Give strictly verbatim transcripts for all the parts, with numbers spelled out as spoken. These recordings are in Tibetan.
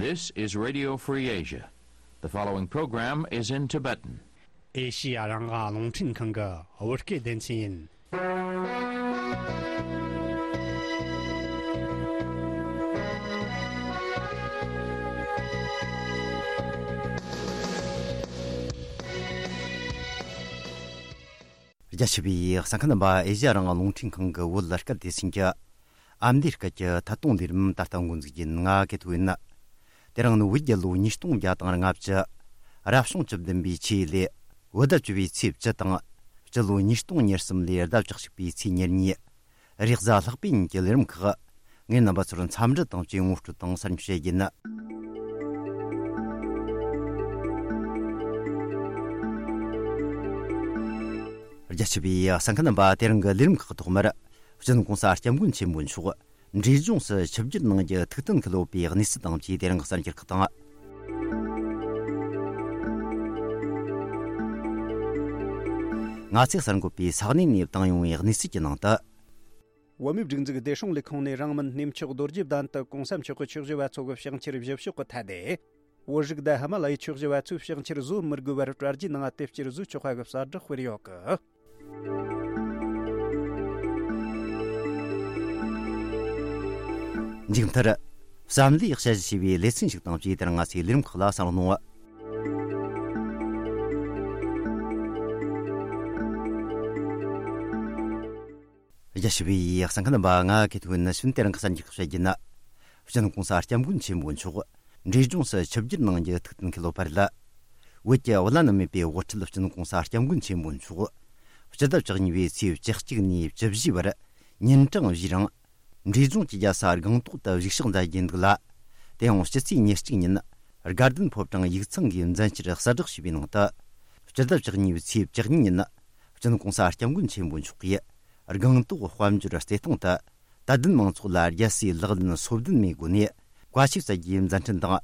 This is Radio Free Asia. The following program is in Tibetan. ཨེ་ཤི་ཡ་རང་དབང་རླུང་འཕྲིན་ཁང་གི་བོད་སྐད་སྡེ་ཚན་ཡིན། རྒྱ་ཆེ་བའི་གསན་མཁན་རྣམ་པ། ཨེ་ཤི་ཡ་རང་དབང་རླུང་འཕྲིན་ཁང་གི་བོད་སྐད་སྡེ་ཚན་གྱི་ཨ་མདོའི་སྐད་ཀྱི་ཐད་གཏོང་ལས་རིམ་ད་ལྟ་འགོ་འཛུགས་ཡིན། ང་ཀེ་ཐོ་ཡིན། དེ་རིང་ནི་བོད་རྒྱལ་ལོ་ཉིས་སྟོང་བརྒྱ་དང་ལྔ་བཅུ། རབ་བྱུང་བཅུ་བདུན་པའི་ཆུ་ཡོས་ལོའི་བོད་ཟླ་བཅུ་པའི་ཚེས་བཅུ་དང་། སྤྱི་ལོ་ཉིས་སྟོང་ཉེར་གསུམ་ལོའི་ཟླ་བཅུ་གཅིག་པའི་ཚེས་ཉེར་གཉིས། རེས་གཟའ་ལྷག་པའི་ཉིན་གྱི་ལས་རིམ་ཁག་ངས་རྣམ་པ་ཚོར་འཚམས་འདྲི་དང་བཅས་ངོ་སྤྲོད་དང་གསར་འགྱུར་བཤད་རྒྱུ་ཡིན། རྒྱ་ཆེ་བའི་གསན་མཁན་རྣམ་པ། དེ་རིང་གི་ལས་རིམ་ཁག་ཐོག་མར། སྤྱི་ནོར་༸གོང་ས་༸སྐྱབས་མགོན་ཆེན་པོ་མཆོག་འབྲས་ལྗོངས་སུ་ཆིབས་བསྒྱུར་གནང་རྒྱུ་ཐུགས་གཏན་འཁེལ་ཡོད་པའི་གནས་ཚུལ་དང་བཅས་དེ་རིང་གི་གསར་འགྱུར་ཁག་དང་། ང་ཚོས་གསར་འགོད་པས་ས་གནས་ནས་བཏང་ཡོང་བའི་གནས་ཚུལ་གྱི་ནང་དུ། བོད་མིའི་སྒྲིག་འཛུགས་བདེ་སྲུང་ལས་ཁུངས་ནས་རང་མིན་གནས་མཆོག་རྡོ་རྗེ་གདན་དུ་༸གོང་ས་མཆོག་གི་ཆོས་བཞི་པ་ཚོ་གི་ཕྱག་འཁྱེར་བཞེས་ཕྱོགས་ཀྱི་ཐད་ནས། བོད་རིགས་དང་ཧི་མ་ལ་ཡའི་ཆོས་བཞི་པ་ཚོས་ཕྱག་འཁྱེར་བཟོ་མི་དགོས་པར་གྲ་སྒྲིག་གནང་བ་དེ་བསྐྱར་བཟོས་ཆོག་པ་གི་གསལ་བསྒྲགས་སྤེལ་ཡོད་གི། མཇུག་མཐར། བསམ་བློའི་དཔྱད་གཞི་ཞེས་པའི་ལེ་ཚན་ཞིག་དང་བཅས་དེ་རིང་ང་ཚོའི་ལས་རིམ་ཁག་ལ་གསན་རོགས་གནང་། རྒྱ་ཆེ་བའི་གསན་མཁན་རྣམ་པ། ང་ཀེ་ཐོ་ཡིན། ནི་ཕྱིན་དེ་རིང་གི་གསར་འགྱུར་ཁག་བཤད་རྒྱུ་ཡིན། སྤྱི་ནོར་༸གོང་ས་༸སྐྱབས་མགོན་ཆེན་པོ་མཆོག་འབྲས་ལྗོངས་སུ་ཆིབས་བསྒྱུར་གནང་རྒྱུ་ཐུགས་གཏན་འཁེལ་ཡོད་པ་རེད། བོད་ཀྱི་བླ་ན་མེད་པའི་དབུ་ཁྲིད་སྤྱི་ནོར་༸གོང་ས་༸སྐྱབས་མགོན་ཆེན་པོ་མཆོག་སྤྱི་ཟླ་བཅུ་གཉིས་པའི་ཚེས་བཅུ་གཅིག་ནས་བཅུ་བཞི་བར་ཉིན་གྲངས་བཞིའི་རིང་། འབྲས་ལྗོངས་ཀྱི་རྒྱལ་ས་སྒང་ཏོག་ཏུ་བཞུགས་ཕྱག་མཛད་རྒྱུ་འདུག་ལ། དེ་ཡང་སྤྱི་ཚེས་ཉེར་གཅིག་ཉིན་དགའ་ལྡན་ཕོ་བྲང་ཡིག་ཚང་གིས་མཛད་འཆར་གསལ་བསྒྲགས་བྱས་པའི་ནང་དུ། སྤྱི་ཟླ་བཅུ་གཉིས་པའི་ཚེས་བཅུ་གཉིས་ཉིན་སྤྱི་ནོར་༸གོང་ས་༸སྐྱབས་མགོན་ཆེན་པོ་མཆོག་གིས་སྒང་ཏོག་དཔལ་འབྱོར་རྩེ་ཐང་དུ་དད་ལྡན་མང་ཚོགས་ལ་རྒྱལ་སྲས་ལག་ལེན་སོ་བདུན་མའི་སྒོ་ནས་བཀའ་ཆོས་སྩལ་རྒྱུའི་མཛད་འཕྲིན་དང་།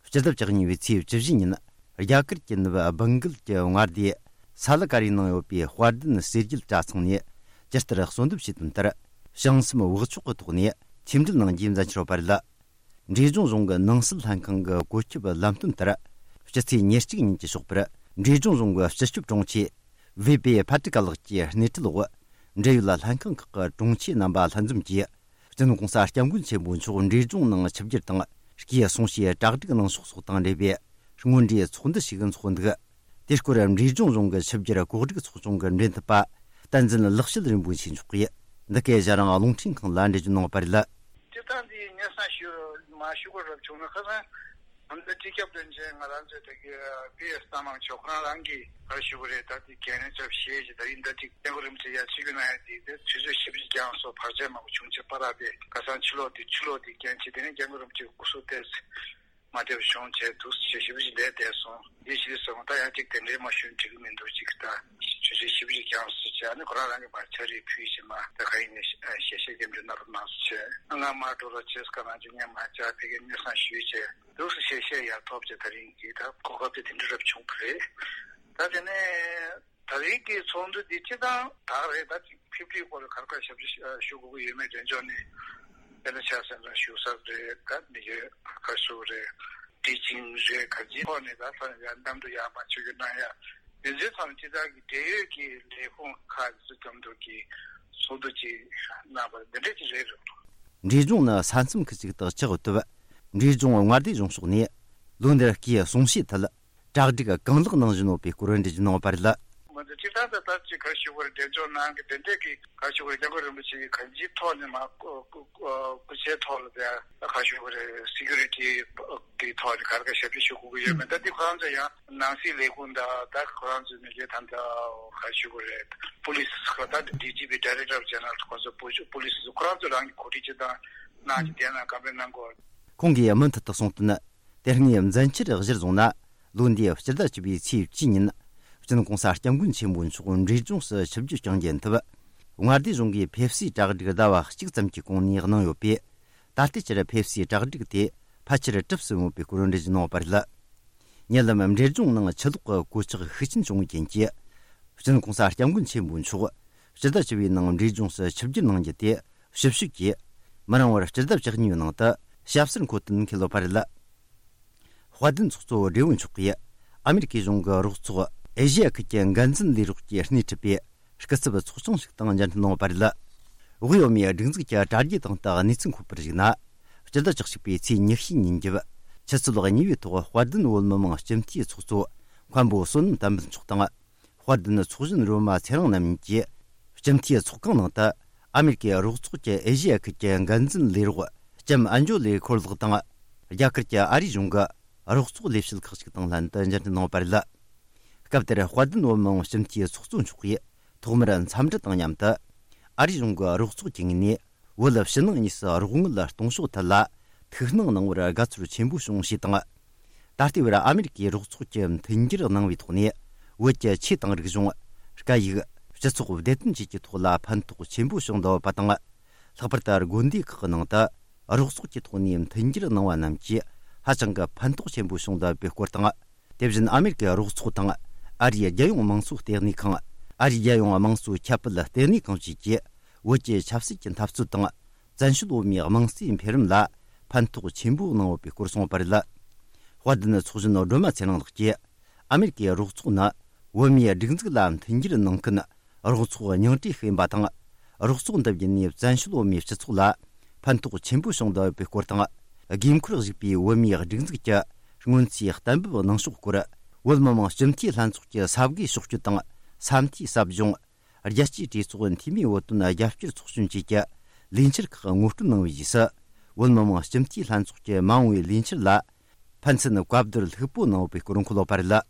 སྤྱི་ཟླ་བཅུ་གཉིས་པའི་ཚེས་བཅུ་བཞི་ཉིན་རྒྱ་གར་གྱི་ནུབ་སྦེང་གལ་གྱི་མངའ་སྡེ་ས་ལ་ཀ་རིའི་ནང་ཡོད་པའི་དཔལ་ལྡན་གསེར་རྒྱལ་གྲྭ་ཚང་ནས་ཇི་ལྟར་གསོལ་འདེབས་བྱས་དོན་ལྟར། བྱང་སེམས་བག་ཆགས་ཀྱི་ཐོག་ནས་ཆོས་འབྲེལ་གནང་རྒྱུའི་མཛད་འཆར་ཡོད་པ་རེད། འབྲས་ལྗོངས་རྫོང་གི་ནང་སྲིད་ལྷན་ཁང་གི་བཀོད་ཁྱབ་ལམ་སྟོན་ལྟར། སྤྱི་ཚེས་ཉེར་གཅིག་ཉིན་གྱི་ཞོགས་པར་འབྲས་ལྗོངས་རྫོང་གི་སྤྱི་ཁྱབ་དྲུང་ཆེ་བེ་པེ་ཕ་ཏི་ཀ་ལགས་ཀྱི་སྣེ་ཁྲིད་འོག་འབྲེལ་ཡོད་ལྷན་ཁང་ཁག་གི་དྲུང་ཆེ་རྣམ་པ་ལྷན་འཛོམས་ཀྱིས། སྤྱི་ནོར་༸གོང་ས་༸སྐྱབས་མགོན་ཆེན་པོ་མཆོག་འབྲས་ལྗོངས་ནང་ཆིབས་བསྒྱུར་དང་། སྐུའི་གསུང་བཤད་གྲ་སྒྲིག་གནང་ཕྱོགས་སོགས་དང་འབྲེལ་བའི་སྔོན་འགྲོའི་ཚོགས་འདུ་ཞིག་འཚོགས་འདུག། དེའི་སྐོར་འབྲས་ལྗོངས་རྫོང་གི་ཆིབས་བསྒྱུར་གོ་སྒྲིག་ཚོགས་ཆུང་གི་འབྲེལ་མཐུད་པ་བསྟན་འཛིན་ལེགས་བཤད་རིན་པོ་ཆེ་མཆོག་གིས་འདི་གའི་ཨེ་ཤ་ཡ་རང་དབང་རླུང་འཕྲིན་ཁང་ལ་འགྲེལ་བརྗོད་གནང་བ་རེད། སྤྱིར་བཏང་འདི་སྙན་སེང་ཞུ་མ་ཞུ་དགོས་རབ་བྱུང་ན། ཁ་སང་ང་ཚོའི་སྤྱི་ཁྱབ་བློན་ཆེན་ང་རང་ཚོའི་ད་གི་པི་ཨེས་གཏམ་དབང་མཆོག་ཁོང་རང་གིས་ག་རེ་ཞུ་གི་རེད། ད་དེ་གལ་གནད་ཚབས་ཆེ་ཞིག་ད་ཡིན་ད་ཅིག་སྐྱབས་མགོན་རིན་པོ་ཆེ་ཡར་ཆིབས་བསྒྱུར་གནང་ཡ་དེ་དེ་དུས་ཚོད་ཞིབ་ཅིག་ཀྱང་སོ་བར་ཆད་མང་པོ་བྱུང་བྱས་པ་ར་པས། ཁ་སང་ཕྱི་ལོགས་དེ་ཕྱི་ལོགས་དེ་རྐྱེན་བྱས་དེ་ནས་སྐྱབས་མགོན་རིན་པོ་ཆེ་སྐུ་གཟུགས་ཏོག་ཙམ་མ་བདེ་བ་བྱུང་བྱས་འདུག་ཟེར་ཞིབ་ཅིག་བསྡད་བསྡད་སོང་། འདི་ཞིག་སོང་ད་ཡང་ཅིག་དེ་འདྲའི་མ་ཞུ་འགྲིག་གི་མི་འདུག་ཅིག་ད་ཆུ་ཚོད་ཞིབ་ཅིག་ཀྱང་སོ་བྱས། ཨ་ནི་ཁོ་རང་རང་གི་མར་ཕྱག་བྲིས་ཕུལ་བྱས་མ་ད་ག་ཡིན་ནས་ཞལ་བཞེས་སྐྱབས་འཇུག་གནང་རོགས་གནང་ཟེར་བྱས། ང་མར་འགྲོ་རོགས་བྱས། ཁ་ནང་ཆུ་ངས་མར་བཅར་ཕ་གིར་སྙན་སེང་ཞུས་བྱས་འདུག་ཟེར་ཞལ་བཞེས་ཡར་ཐོབ་བྱས། ད་རིང་གི་ད་གོ་སྐབས་དེ་དེ་འདྲ་རབ་བྱུང་གི་རེད། ད་དེ་ནས་ད་རིང་གི་ཚོགས་འདུ་འདི་སྤྱིར་བཏང་ད་ག་རེད། ད་ཅིག་ཕེབས་སྒྲིག་སྐོར་ལ་ག་རེ་ག་རེ་ཞབས་ཞུ་ཞུ་དགོས་ཀྱི་ཡོད་མེད་དོན་ཚོགས་ནས་དཔེར་ན་ཆ་བཞག་ན་བཞུགས་ས་རེད། ད་མི་ཡོད་ག་རེ་ཞུ་དགོས་རེད། ཊི་ཆིང་རེད། ག་ཅིའི་ཐོག་ནས་ད་ས་ཡ་གནམ་གྲུ་ཡར་མར་ཆུ་རྒྱུག་གནང་ཡ་དེ་ཚོའི་ཐོག་ནས་སྤྱི་བཏང་གི་འབྲེལ་ཡོད་ཀྱི་ལས་ཁུངས་ཁག་ཅིག་ཚོ་མཉམ་དུ་གི་ཚོགས་འདུ་ཅིག་གནང་བ་འདི་འདྲ་ཅིག་རེད། འབྲས་ལྗོངས་ནི་ས་མཚམས་ཁུལ་ཅིག་ཏུ་ཆགས་ཡོད་སྟབས། འབྲས་ལྗོངས་མངའ་སྡེ་གཞུང་ཕྱོགས་ནས་ལོ་འདིར་སྐུའི་གསུང་བཤད་ཐད། གྲ་སྒྲིག་གང་ལེགས་གནང་བཞིན་ཡོད་པའི་སྐོར་འགྲེལ་བརྗོད་གནང་བ་རེད། ང་ཚོ་སྤྱིར་བཏང་ད་ལྟ་ཅིག་ག་རེ་ཞུ་དགོས་རེད། འབྲས་ལྗོངས་ནང་གི་དེ་འདྲས་ཀྱི་ག་རེ་ཞུ་དགོས་རེད། སྐྱབས་མགོན་རིན་པོ་ཆེ་གི་གང་ཅིའི་ཐོག་ནས་མ་སྐུ་སྐུ་སྐུ་ཚེའི་ཐོག་ལ་དེ་ག་རེ་ཞུ་དགོས་རེད། སི་ཀུ་རི་ཊི་གི་ཐོག་ནས་ག་རེ་ག་རེ་ཞབས་ཕྱི་ཞུ་དགོས་ཀྱི་ཡོད་མེད། ད་འདི་ཁོ་རང་ཚོ་ཡང་ནང་སྲིད་ལས་ཁུངས་དང་ད་ཁོ་རང་ཚོའི་མི་སྒེར་ད་ད་ག་རེ་ཞུ་དགོས་རེད། པུ་ལི་སི་ད་ཌི་ཇི་པི་Director General ཁོ་ཚོ་པུ་པུ་ལི་སི་ཁོ་རང་ཚོ་རང་གི་གོ་སྒྲིག་བྱེད་སྟངས་གནང་གི་དེ་ན་ག་འདྲས་གནང་དགོས། ཁོང་གིས་མུ་མཐུད་དུ་གསུངས་དོན། དེ་སྔའི་མཛད་འཆར་གཞིར་བཟུང་ན། ལོ་འདིའི་སྤྱི་ཟླ་བཅུ་པའི་ཚེས་བཅུ་ཉིན། སྤྱི་ནོར་༸གོང་ས་༸སྐྱབས་མགོན་ཆེན་པོ་མཆོག་འབྲས་ལྗོངས་སུ་ཆིབས་བསྒྱུར་བསྐྱངས་རྒྱུ་ཡིན་སྟབས། མངའ་སྡེ་གཞུང་གིས་ཕེབས་བསུའི་གྲ་སྒྲིག་ཟླ་བ་གཅིག་ཙམ་གྱི་གོང་ནས་གནང་ཡོད་པས། ད་ལྟའི་ཆར་ཕེབས་བསུའི་གྲ་སྒྲིག་དེ་ཕལ་ཆེར་གྲུབ་ཟིན་ཡོད་པའི་སྐོར་འགྲེལ་བརྗོད་གནང་བ་རེད། ཉེ་ལམ་འབྲས་ལྗོངས་ནང་ཆུ་ལོག་གི་གོད་ཆག་ཤུགས་ཆེན་བྱུང་བའི་རྐྱེན་གྱིས། སྤྱི་ནོར་༸གོང་ས་༸སྐྱབས་མགོན་ཆེན་པོ་མཆོག་སྤྱི་ཟླ་བཅུ་པའི་ནང་འབྲས་ལྗོངས་སུ་ཆིབས་བསྒྱུར་གནང་རྒྱུ་དེ་ཞིབ་དཔྱོད་ཀྱིས་མི་རིང་བར་སྤྱི་ཟླ་བཅུ་གཉིས་པའི་ནང་དུ་ཞབས་སོར་འཁོད་དོན་འཁེལ་ཡོད་པ་རེད། དཔལ་ལྡན་ཚོགས་གཙོ་བགྲེས་པོ་མཆོག་གིས་ཨ་མེ་རི་ཀའི་གཞུང་གི་རོགས་ཚོགས་ཨེ་ཤེ་ཡ་ཁུལ་གྱི་འགན་འཛིན་ལས་རོགས་ཀྱིས་སྣེ་ཁྲིད་པའི་སྐུ་ཚབ་ཚོགས་ཆུང་ཞིག་དང་མཇལ་འཕྲད་གནང་བ་རེད། དབུས་བོད་མིའི་སྒྲིག་འཛུགས་ཀྱི་དྲ་རྒྱའི་སྟེང་དུ་གནས་ཚུལ་འཁོད་པར་གཞིགས་ན། སྤྱི་ཟླ་བཅུ་གཅིག་པའི་ཚེས་ཉི་ཤུའི་ཉིན་རྒྱབ་ཆུ་ཚོད་གཉིས་པའི་ཐོག་དཔལ་ལྡན་བོད་མི་མང་སྤྱི་འཐུས་ཚོགས་གཙོ་མཁན་པོ་བསོད་ནམས་བསྟན་འཕེལ་མཆོག་དང་། དཔལ་ལྡན་ཚོགས་གཞོན་རོ་མ་ཚེ་རིང་རྣམ་གཉིས་ཀྱིས་སྤྱི་འཐུས་ཚོགས་ཁང་ནང་དུ་ཨ་མེ་རི་ཀའི་རོགས་ཚོགས་ཀྱི་ཨེ་ཤེ་ཡ་ཁུལ་གྱི་འགན་འཛིན་ལས་རོགས་ལྕམ་ཨན་ཇོ་ལི་ཁོར་ལགས་དང་། རྒྱ་གར་གྱི་ཨ་རིའི་གཞུང་གི་རོགས་ཚོགས་ལས་བྱེད་ཁག་ཅིག་དང་ལྷན་དུ་མཇལ་འཕྲད་གནང་བ་རེད། སྐབས་དེར་དཔལ་ལྡན་བོད་མི་མང་སྤྱི་འཐུས་ཚོགས་གཙོ་མཆོག་གིས་ཐོག་མར་འཚམས་འདྲི་དང་མཉམ་དུ། ཨ་རིའི་གཞུང་གི་རོགས་ཚོགས་ཀྱི་ངོས་ནས་བོད་ཕྱི་ནང་གཉིས་སུ་རོགས་དངུལ་གཏོང་ཕྱོགས་ཐད་ལ་ཐུགས་སྣང་གནང་བར་དགའ་ཚོར་ཆེན་པོ་བྱུང་ཞེས་དང་། ད་ལྟའི་བར་ཨ་མེ་རི་ཀའི་རོགས་ཚོགས་ཀྱི་མཐུན་འགྱུར་གནང་བའི་ཐོག་ནས། བོད་ཀྱི་ཆོས་དང་རིག་གཞུང་། སྐད་ཡིག་སྤྱི་ཚོགས་བདེ་དོན་བཅས་ཀྱི་ཐོག་ལ་ཕན་ཐོགས་ཆེན་པོ་བྱུང་འདུག་པ་དང་། ལྷག་པར་དུ་དགོན་སྡེ་ཁག་གི་ནང་དུ་རོགས་ཚོགས་ཀྱི་ཐོག་ནས་མཐུན་འགྱུར་གནང་བ་རྣམས་ཀྱིས་ཧ་ཅང་གི་ཕན་ཐོགས་ཆེན་པོ་བྱུང་འདུག་པའི་སྐོར་དང་། དེ་བཞིན་ཨ་མེ་རི་ཀའི་རོགས་ཚོགས་དང་། ཨ་རིའི་རྒྱལ་ཡོངས་དམངས་གཙོ་ལྟེ་གནས་ཁང་། ཨ་རིའི་རྒྱལ་ཡོངས་དམངས་གཙོ་ཁྱབ་སྤེལ་ལྟེ་གནས་ཁང་བཅས་ཀྱིས་བོད་ཀྱི་ཆབ་སྲིད་ཀྱི་འཐབ་རྩོད་དང་། བཙན་བྱོལ་བོད་མིའི་དམངས་གཙོའི་འཕེལ་རིམ་ལ་ཕན་ཐོགས་ཆེན་པོ་གནང་ཡོད་པའི་སྐོར་གསུངས་པ་རེད། དཔལ་ལྡན་ཚོགས་གཞོན་སྒྲོལ་མ་ཚེ་རིང་ལགས་ཀྱིས། ཨ་མེ་རི་ཀའི་རོགས་ཚོགས་ནི་བོད་མིའི་སྒྲིག་འཛུགས་ལ་མཐུན་འགྱུར་གནང་མཁན་རོགས་ཚོགས་ཉུང་གྲས་ཤིག་ཡིན་པ་དང་། རོགས་ཚོགས་འདི་བརྒྱུད་ནས་བཙན་བྱོལ་བོད་མིའི་སྤྱི་ཚོགས་ལ་ཕན་ཐོགས་ཆེན་པོ་བྱུང་བསྡད་ཡོད་པའི་སྐོར་དང་། དགོས་མཁོར་གཞིགས་པའི་བོད་མིའི་སྒྲིག་འཛུགས་ཀྱི་སྔོན་རྩིས་གཏན་འབེབས་གནང་ཕྱོགས་སྐོར། བོད་མི་མང་སྤྱི་འཐུས་ལྷན་ཚོགས་ཀྱི་ས་དགེ་ཕྱོགས་བསྐྱོད་དང་ས་མཐོའི་ཟབ་སྦྱོང་། རྒྱལ་སྤྱིའི་གྲོས་ཚོགས་འཐུས་མིའི་བོད་དོན་རྒྱབ་སྐྱོར་ཚོགས་ཆུང་བཅས་ཀྱི་ལས་འཆར་ཁག་ངོ་སྤྲོད་གནང་བའི་རྗེས་སུ། བོད་མི་མང་སྤྱི་འཐུས་ལྷན་ཚོགས་ཀྱི་མ་འོངས་པའི་ལས་འཆར་ལ་ཕན་ཚུན་བཀའ་བསྡུར་ལྷུག་པོ་གནང་ཡོད་པའི་སྐོར་འཁོད་ཡོད་པ་རེད།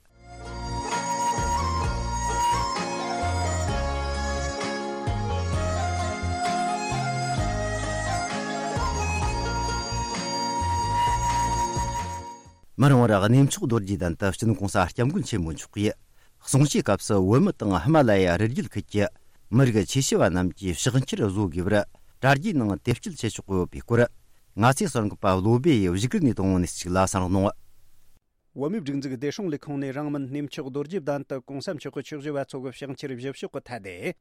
མ་འོངས་པར་གནས་མཆོག་རྡོ་རྗེ་གདན་དུ་སྤྱི་ནོར་༸གོང་ས་༸སྐྱབས་མགོན་ཆེན་པོ་མཆོག་གིས། གསུང་ཆོས་སྐབས་སུ་བོད་མི་དང་ཧི་མ་ལ་ཡ་རི་རྒྱུད་ཁུལ་གྱི་མི་རིགས་ཆེ་ཤོས་པ་རྣམས་ཀྱིས་ཕྱག་འཁྱེར་བཟོ་དགོས་པར་དྲ་རྒྱའི་ནང་དེབ་སྐྱེལ་བྱེད་ཆོག་གི་ཡོད་པའི་སྐོར། ང་ཚོའི་གསར་འགོད་པ་བློ་བྷེ་ཡིས་བཞུགས་སྒར་ནས་བཏང་བ་ནས་གཅིག་ལ་གསན་རོགས་གནང་། བོད་མིའི་སྒྲིག་འཛུགས་བདེ་སྲུང་ལས་ཁུངས་ནས་རིང་མིན་གནས་མཆོག་རྡོ་རྗེ་གདན་དུ་༸གོང་ས་མཆོག་གི་ཆོས་བཞི་པ་ཚོ་གི་ཕྱག་འཁྱེར་བཞེས་ཕྱོགས་ཀྱི་ཐད་དེ།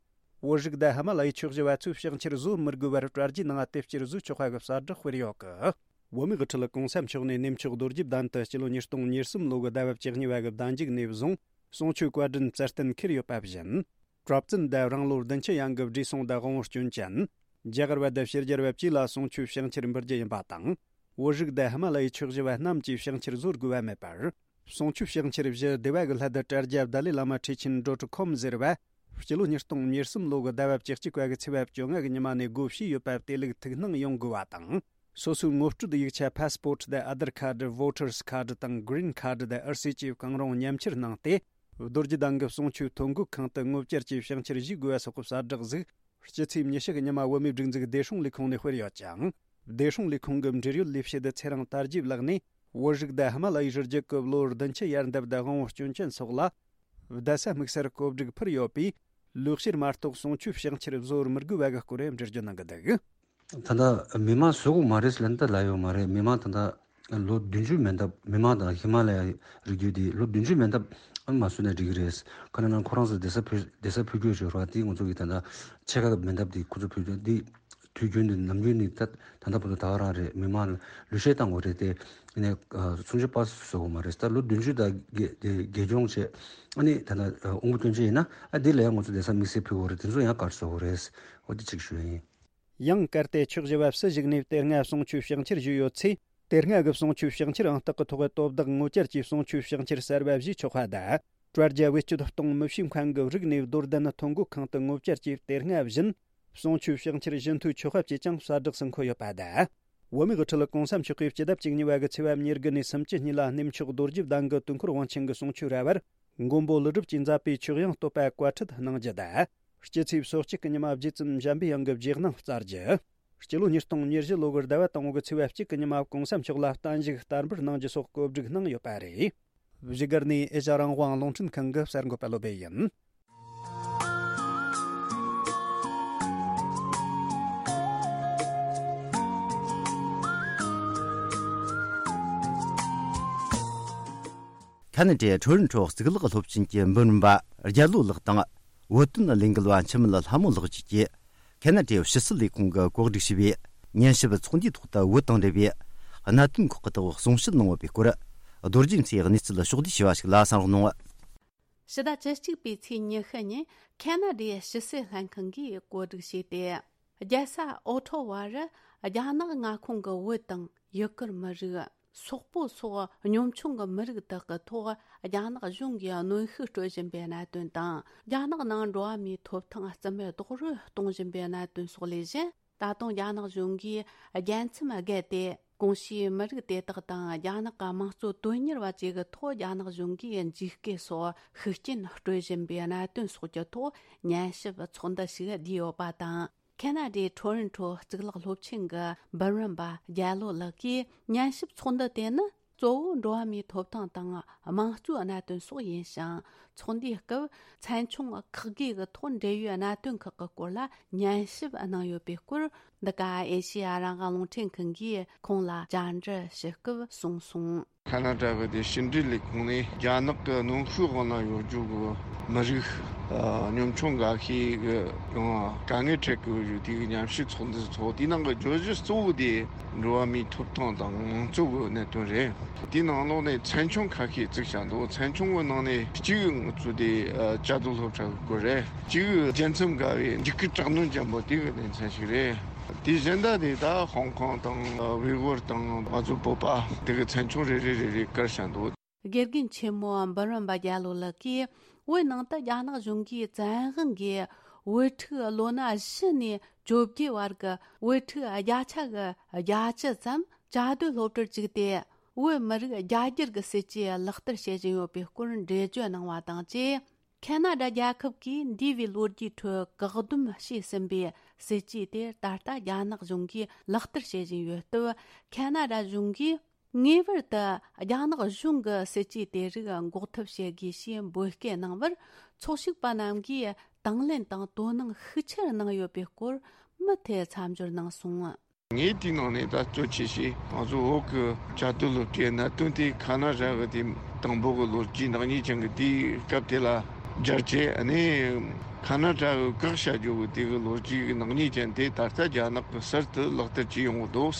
བོད་རིགས་དང་ཧི་མ་ལ་ཡའི་ཆོས་བཞི་པ་ཚོས་ཕྱག་འཁྱེར་བཟོ་མི་དགོས་པར་དྲ་རྒྱའི་ནང་དེབ་སྐྱེལ་བཟོས་ཆོག་པ་གི་གསལ་བསྒྲགས་སྤེལ་ཡོད་གི། བོད་མིའི་དབུ་ཁྲིད་༸གོང་ས་མཆོག་ནས་གནས་མཆོག་རྡོ་རྗེ་གདན་དུ་སྤྱི་ལོ་ཉིས་སྟོང་ཉེར་གསུམ་ལོ་གི་ཟླ་བ་བཅུ་གཉིས་པ་གི་ཟླ་མཇུག་ནས་བཟུང་གསུང་ཆོས་བཀའ་དྲིན་སྩལ་གཏན་འཁེལ་ཡོད་པ་བཞིན། གྲྭ་བཙུན་དང་རང་ལོ་བདུན་ཅུ་ཡན་གྱི་བགྲེས་སོང་དང་དབང་བོ་སྐྱོན་ཅན། རྒྱ་གར་བ་དང་ཕྱི་རྒྱལ་བ་བཅས་ལ་གསུང་ཆོས་ཕྱག་འཁྱེར་འབུལ་རྒྱུ་ཡིན་པ་དང་། བོད་རིགས་དང་ཧི་མ་ལ་ཡའི་ཆོས་བཞི་པ་རྣམས་ཀྱིས་ཕྱག་འཁྱེར་བཟོ་དགོས་པ་མེད་པར། གསུང་ཆོས་ཕྱག་འཁྱེར་བཞི་སྡེ་བ་གི་སླད་དུ་དྲ་རྒྱ་བརྡ་ལས་བླ་མ་ཁྲི་ཆེན་ཌོ་ཊི་ཁོམ་ཟེར་བ། སྤྱི་ལོ་ཉིས་སྟོང་ཉེར་གསུམ་ལོ་གི་ཟླ་བ་བཅུ་གཅིག་པ་གི་ཚེས་པ་བཅོ་ལྔ་གི་ཉི་མ་ནས་སྒོ་ཕྱེས་ཡོད་པ་དེ་ལུགས་ཐུགས་སྣང་ཡོང་དགོས་པ་དང་། སོ་སོའི་ངོ་སྤྲོད་ཡིག་ཆ་ཕ་སི་པོར་ཊི་དང་ཨ་དར་ཁ་ཌི། བོ་ཊར་སི་ཁ་ཌི་དང་གི་རིན་ཁ་ཌི་དང་ཨར་སི་བཅས་གང་རུང་མཉམ་ཁྱེར་གནང་སྟེ། རྡོ་རྗེ་གདན་གྱི་གསུང་ཆོས་ཐོ་འགོད་ཁང་དུ་ངོ་བཅར་གྱིས་ཕྱག་འཁྱེར་བཞེས་དགོས་པ་སོགས་ཀྱི་གསལ་བསྒྲགས་ཤིག་སྤྱི་ཚེས་ཉི་ཤུ་གི་ཉི་མ་བོད་མིའི་སྒྲིག་འཛུགས་བདེ་སྲུང་ལས་ཁུངས་ནས་སྤེལ་ཡོད་ཅིང་། བདེ་སྲུང་ལས་ཁུངས་ཀྱི་འབྲེལ་ཡོད་ལས་བྱེད་ཚེ་རིང་དར་རྒྱས་ལགས་ནས། བོད་རིགས་དང་ཧི་མ་ལ་ཡའི་རི་རྒྱུད་ཀྱི་ལོ་བདུན་ཅུ་ཡར་འདབ་དང་དབང་བོ་སྐྱོན་ཅན་སོགས་ལ། བརྡ་གསར་དམིགས་བསལ་བཀོད་སྒྲིག་ཕུལ་ཡོད་པས། ལོ་བཤེར་མ་གཏོགས་གསུང་ཆོས་ཕྱག་འཁྱེར་བཟོ་བར་མི་དགོས་པ་གི་སྐོར་འགྲེལ་བརྗོད་གནང་གི་འདུག། ད་ལྟ་མི་མང་བཟོ་དགོས་མ་རེད་ལབ་ན་ད་ལབ་ཡོད་མ་རེད། མི་མང་ད་ལྟ་ལོ་བདུན་ཅུ་མན་འདབས། མི་མང་དང་ཧི་མ་ལ་ཡ་རི་རྒྱུད་དེ་ལོ་བདུན་ཅུ་མན་འདབས་ཨ་མ་བཟོས་ན་འགྲིག་གི་རེད། ཁ་ན་ན་ཁོ་རང་ཚོ་བསྡད་ས་ཕུད། བསྡད་ས་ཕུད་རྒྱུ་ཞོར་བ་དེ་ང་ཚོ་གི་ད་ལྟ་ཕྱེད་ཀ་མན་འདབས་དེ་ཁོ་ཚོ་ཕུད་རྒྱུ་དེ། དུས་རྒྱུན་དུ་ནམ་རྒྱུན་ནི་ད་ད་ལྟ་བར་དུ་ད་ག་རང་རེད། མི་མང་ལ་ལུས་ཤེད་བཏང་དགོས་རེད་དེ། ཨ་ནི་སུམ་ཅུ་པ་བཟོ་དགོས་མ་རེད། ད་ལོ་བདུན་ཅུ་དང་རྒས་རྒས་གྱོང་བྱས། ཨ་ནི་ད་ལྟ་དབང་པོ་སྐྱོན་ཅན་ཡིན་ན་ཨ་དེ་ལ་ཡང་ང་ཚོ་བསྡད་ས་དམིགས་བསལ་ཕུད་དགོས་རེད། དེ་ཚོ་ཡང་ག་རེ་བཟོ་དགོས་རེད། འོ་དེ་གཅིག་ཞུ་ཡིན། ཡང་གལ་ཏེ་ཆོས་བཞི་པ་སུ་ཞིག་ནས་དེ་སྔ་གསུང་ཆོས་ཕྱག་འཁྱེར་ཞུས་ཡོད་ཚེ། དེ་སྔ་གི་གསུང་ཆོས་ཕྱག་འཁྱེར་ཨང་རྟགས་ཀྱི་ཐོག་གི་དོ་བདག་ངོ་བཅར་གྱིས་གསུང་ཆོས་ཕྱག་འཁྱེར་གསར་བ་བཞེས་ཆོག་པ་དང་། དྲ་རྒྱ་བེད་སྤྱོད་གཏོང་མི་བྱེད་མཁན་གྱི་རིགས་ནས་རྡོར་གདན་ཐོ་འགོད་ཁང་དུ་ངོ་བཅར་གྱིས་དེ་སྔ་བཞིན་གསུང་ཆོས་ཕྱག་འཁྱེར་བཞེས་མཐུ་ཆོག་པ་བཅས་ཀྱང་གསལ་བསྒྲགས་སུ་འཁོད་ཡོད་པ་དང་། བོད་མིའི་དབུ་ཁྲིད་༸གོང་ས་མཆོག་གིས་སྤྱི་ཟླ་བཅུ་གཉིས་པ་གི་ཚེས་པ་ཉེར་དགུ་ནས་སུམ་ཅུ་གཉིས་ལ་གནས་མཆོག་རྡོ་རྗེ་གདན་གྱི་དུས་འཁོར་དབང་ཆེན་གྱི་གསུང་ཆོས་ར་བར་མགོན་པོ་ཀླུ་སྒྲུབ་ཀྱིས་མཛད་པའི་ཆོས་དབྱིངས་བསྟོད་པ་བཀའ་ཁྲིད་གནང་རྒྱུ་དང་། སྤྱི་ཚེས་སོ་གཅིག་གི་ཉི་མ་རྗེ་བཙུན་འཇམ་པའི་དབྱངས་ཀྱི་རྗེས་གནང་སྩལ་རྒྱུ། སྤྱི་ལོ་ཉིས་སྟོང་ཉེར་བཞི་ལོ་གི་ཟླ་བ་དང་པོ་གི་ཚེས་པ་གཅིག་གི་ཉི་མ་༸གོང་ས་མཆོག་ལ་བརྟན་བཞུགས་བསྟར་འབུལ་གནང་རྒྱུ་སོགས་གོ་སྒྲིག་གནང་ཡོད་པ་རེད། བཞུགས་སྒར་ནས་ཨེ་ཤ་རང་དབང་རླུང་འཕྲིན་ཁང་གི་གསར་འགོད་པ་བློ་བྷེ་ཡིན། ཁ་ན་ཌའི་ཊོ་རོན་ཊོ་གཙུག་ལག་སློབ་ཆེན་གྱི་འབུམ་རམས་པ་རྒྱལ་ལོ་ལགས་དང་། བོད་དོན་ལས་འགུལ་བ་འཆི་མེད་ལྷ་མོ་ལགས་བཅས་ཀྱིས། ཁ་ན་ཌའི་ཕྱི་སྲིད་ལས་ཁུངས་ཀྱིས་གོ་སྒྲིག་བྱས་པའི་ཉན་ཞིབ་ཚོགས་འདུའི་ཐོག་ཏུ་བོད་དང་འབྲེལ་བའི་གནད་དོན་ཁག་གི་ཐོག་གསུང་བཤད་གནང་བ་པའི་སྐོར། རྡོ་རྗེ་མཚོའི་གནས་ཚུལ་ཕྱོགས་བསྡུས་བྱས་པ་ཞིག་ལ་གསན་རོགས་གནང་། ཕྱི་ཟླ་བཅུ་གཅིག་པའི་ཚེས་ཉི་ཤུ་ཉིན་ཁེ་ན་ཌའི་ཕྱི་སྲིད་ལྷན་ཁང་གིས་གོ་སྒྲིག་བྱས་ཏེ། རྒྱལ་ས་ཨོ་ཊོ་ཝ་རུ་རྒྱ་ནག་མངའ་ཁོངས་ཀྱི་བོད་དང་ཡུ་གུར་མི་རིགས། སོག་པོ་སོགས་གཉོམ་ཆུང་གི་མི་རིགས་དག་གི་ཐོག་རྒྱ་ནག་གཞུང་གིས་གནོན་ཤུགས་སྤྲོད་བཞིན་པའི་གནད་དོན་དང་། རྒྱ་ནག་ནང་འགྲོ་བ་མིའི་ཐོབ་ཐང་རྩིས་མེད་རྡོག་རོལ་གཏོང་བཞིན་པའི་གནད་དོན་སོགས་ལས་གཞན། ད་དུང་རྒྱ་ནག་གཞུང་གིས་རྒྱལ་མཚམས་བརྒལ་ཏེ། གོང་ཞུས་མི་རིགས་དེ་དག་དང་རྒྱ་ནག་གི་དམངས་གཙོ་དོན་གཉེར་བ་བཅས་ཀྱི་ཐོག་རྒྱ་ནག་གཞུང་གིས་འཇིགས་སྐུལ་སོགས་ཤུགས་རྐྱེན་སྤྲོད་བཞིན་པའི་གནད་དོན་སོགས་ཀྱི་ཐོག་ཉན་ཞིབ་ཚོགས་འདུ་ཞིག་བསྡུས་ཡོད་པ་དང་། ཁེ་ན་ཌའི་ཊོ་རོན་ཊོ་གཙུག་ལག་སློབ་ཆེན་གྱི་འབུམ་རམས་པ་རྒྱལ་ལོ་ལགས་ཀྱིས། ཉན་ཞིབ་ཚོགས་འདུ་དེ་ནི་གཙོ་བོ་འགྲོ་བ་མིའི་ཐོབ་ཐང་དང་དམངས་གཙོའི་གནད་དོན་སོགས་ཡིན་ཞིང་། ཚོགས་འདུའི་སྐབས་ཚན་ཆུང་ཁག་བགོས་ཀྱི་ཐོག་འབྲེལ་ཡོད་གནད་དོན་ཁག་གི་སྐོར་ལ་ཉན་ཞིབ་གནང་ཡོད་པའི་སྐོར། འདི་ག་ཨེ་ཤེ་ཡ་རང་དབང་རླུང་འཕྲིན་ཁང་གིས་ཁོང་ལ་བཅར་འདྲི་ཞུ་སྐབས་གསུངས་སོང་། ཁ་ན་ཌ་གི་དེ་ཕྱི་འབྲེལ་ལས་ཁུངས་ནས་རྒྱ་ནག་གི་གནོན་ཤུགས་འོག་ན་ཡོད་རྒྱུ་གི་མི་རིགས་ཨ་གཉོམ་ཆུང་འགའ་ཤས་གི་ཡང་དཀའ་ངལ་འཕྲད་གི་ཡོད་རྒྱུ་དེ་གི་ཉམས་ཞིབ་ཚོགས་འདུ་ཚོགས། དེའི་ནང་གི་བརྗོད་གཞི་གཙོ་བོ་དེ་འགྲོ་བ་མིའི་ཐོབ་ཐང་དང་དམངས་གཙོ་གི་གནད་དོན་རེད། དེའི་ནང་ལོགས་ནས་ཚན་ཆུང་ཁ་ཤས་བཙུགས་བཞག་འདུག་ཚན་ཆུང་གི་ནང་ནས་གཅིག་ང་ཚོ་དེ་ཨ་བཅའ་སྡོད་སློབ་གྲྭ་གི་སྐོར་རེད། གཅིག་རྒྱལ་མཚམས་བརྒལ་བའི་འཇིགས་སྐུལ་དྲག་གནོན་ཅན་པོ་དེ་གི་གནས་ཚུལ་ཞིག་རེད། དེ་གཞན་དག་དེ་ད་ཧོང་ཀོང་དང་ཝེ་གོར་དང་ང་ཚོ་བོད་པ་དེ་གི་ཚན་ཆུང་རེ་རེ་རེ་རེ་བཀར་བཞག་འདུག་དགེ་རྒན་ཆེན་མོ་འབུམ་རམས་པ་རྒྱལ་ལོ་ལགས་ཀྱིས། བོད་ནང་དུ་རྒྱ་ནག་གཞུང་གིས་བཙན་དབང་གིས་བོད་ཕྲུག་ལོ་ན་བཞི་ནས་བཅོ་བརྒྱད་བར་གྱི་བོད་ཕྲུག་བརྒྱ་ཆ་གི་བརྒྱད་ཅུ་ཙམ་བཅའ་སྡོད་སློབ་གྲྭར་བཅུག་སྟེ། བོད་མི་རིགས་རྒྱ་སྒྱུར་གྱི་སྲིད་ཇུས་ལག་བསྟར་བྱེད་བཞིན་ཡོད་པའི་སྐོར་འགྲེལ་བརྗོད་གནང་བ་དང་བཅས། ཁེ་ན་ཌ་རྒྱལ་ཁབ་ཀྱིས་འདས་པའི་ལོ་རྒྱུས་ཁྲོད་བཀག་སྡོམ་བྱས་ཟིན་པའི་སྲིད་ཇུས་དེ་ད་ལྟ་རྒྱ་ནག་གཞུང་གིས་ལག་བསྟར་བྱེད་བཞིན་ཡོད་སྟབས། ཁེ་ན་ཌ་གཞུང་གིས་ངེས་པར་དུ་རྒྱ་ནག་གཞུང་གི་སྲིད་ཇུས་དེ་རིགས་འགོག་ཐབས་བྱེད་དགོས་ཞེས་འབོད་སྐུལ་གནང་བར། ཚོགས་ཞུགས་པ་རྣམས་ཀྱིས་དང་ལེན་དང་དོ་སྣང་ཤུགས་ཆེར་གནང་ཡོད་པའི་སྐོར་མུ་མཐུད་མཚམས་སྦྱོར་གནང་སོང་། ངས་དེའི་ནང་ནས་ད་གཙོ་ཆེ་ཤོས་ང་ཚོ་བོད་ཀྱི་བཅའ་སྡོད་སློབ་གྲྭའི་གནད་དོན་དེ་ཁ་ན་ཌ་གི་དེ་དང་པོ་གི་ལོ་རྒྱུས་ནག་ཉེས་ཅན་གྱི་དེའི་སྐབས་དེ་ལ་སྦྱར་བྱས། ཨ་ནི་ཁ་ན་ཌ་གི་བཀག་བྱ་རྒྱུ་གི་དེ་གི་ལོ་རྒྱུས་ཀྱི་ནག་ཉེས་ཅན་དེ་ད་ལྟ་རྒྱ་ནག་གི་གསར་དུ་ལག་བསྟར་བྱས་ཡོང་གི་འདུག་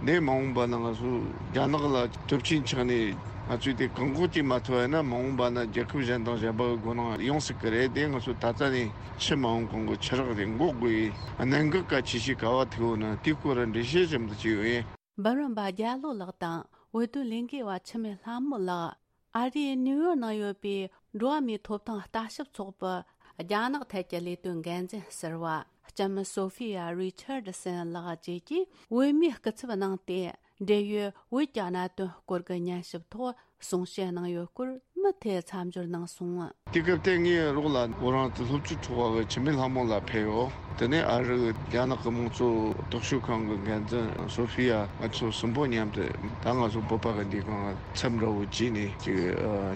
འདི་མ་འོངས་པ་ན་ང་ཚོ་རྒྱ་ནག་ལ་སྟོབས་ཆེན་ཆགས་ནས་ང་ཚོས་དེ་བཀག་འགོག་བྱེད་མ་ཐུབ་པ་ཡིན་ན། མ་འོངས་པ་ན་རྒྱལ་ཁབ་གཞན་དང་གཞན་པ་གི་མགོ་ནང་ཡོང་སྲིད་ཀྱི་རེད། དེ་ང་ཚོ་ད་ལྟ་ནས་ཕྱི་མ་འོངས་གོང་གི་ཆུ་རགས་དེ་འགོག་དགོས་ཡི་གནད་འགག་གལ་ཆེ་ཤོས་ག་བ་ཐུག་ཡོད་ན་དེའི་སྐོར་འགྲེལ་བཤད་ཙམ་དུ་བྱས་ཡོད། འབུམ་རམས་པ་རྒྱལ་ལོ་ལགས་དང་བོད་དོན་ལས་འགུལ་བ་འཆི་མེད་ལྷ་མོ་ལགས། ཨ་རིའི་ནིའུ་ཡོག་ནང་ཡོད་པའི་འགྲོ་བ་མིའི་ཐོབ་ཐང་ལྟ་ཞིབ་ཚོགས་པའི་རྒྱ་ནག་ཐད་ཀྱི་ལས་དོན་འགན་འཛིན་ཟུར་པ་ལྕམ་སོ་ཧྥི་ཡ་རི་ཆར་ཌི་སན་ལགས་བཅས་ཀྱིས་བོད་མིའི་སྐུ་ཚབ་གནང་སྟེ། འབྲེལ་ཡོད་བོད་ཀྱི་གནད་དོན་སྐོར་གྱི་ཉན་ཞིབ་ཐོག་གསུང་བཤད་གནང་ཡོད་སྐོར་མུ་མཐུད་མཚམས་སྦྱོར་གནང་སོང་། དེ་སྐབས་དེ་ངའི་རོགས་ལ་བོད་རང་བཙན་སློབ་ཕྲུག་ཚོགས་པ་གི་འཆི་མེད་ལྷ་མོ་ལགས་ཕེབས་ཡོད། དེ་ནས་ཨ་རི་རྒྱ་ནག་གི་དམངས་གཙོ་རྟོག་ཞིབ་ཁང་གི་འགན་འཛིན་སོ་ཧྥི་ཡ། ང་ཚོ་གསུམ་པོ་མཉམ་དུ་ད་ང་ཚོ་བོད་པ་གི་འདི་གང་ཚབ་འདྲ་བོ་བྱས་ནས་ཅིག་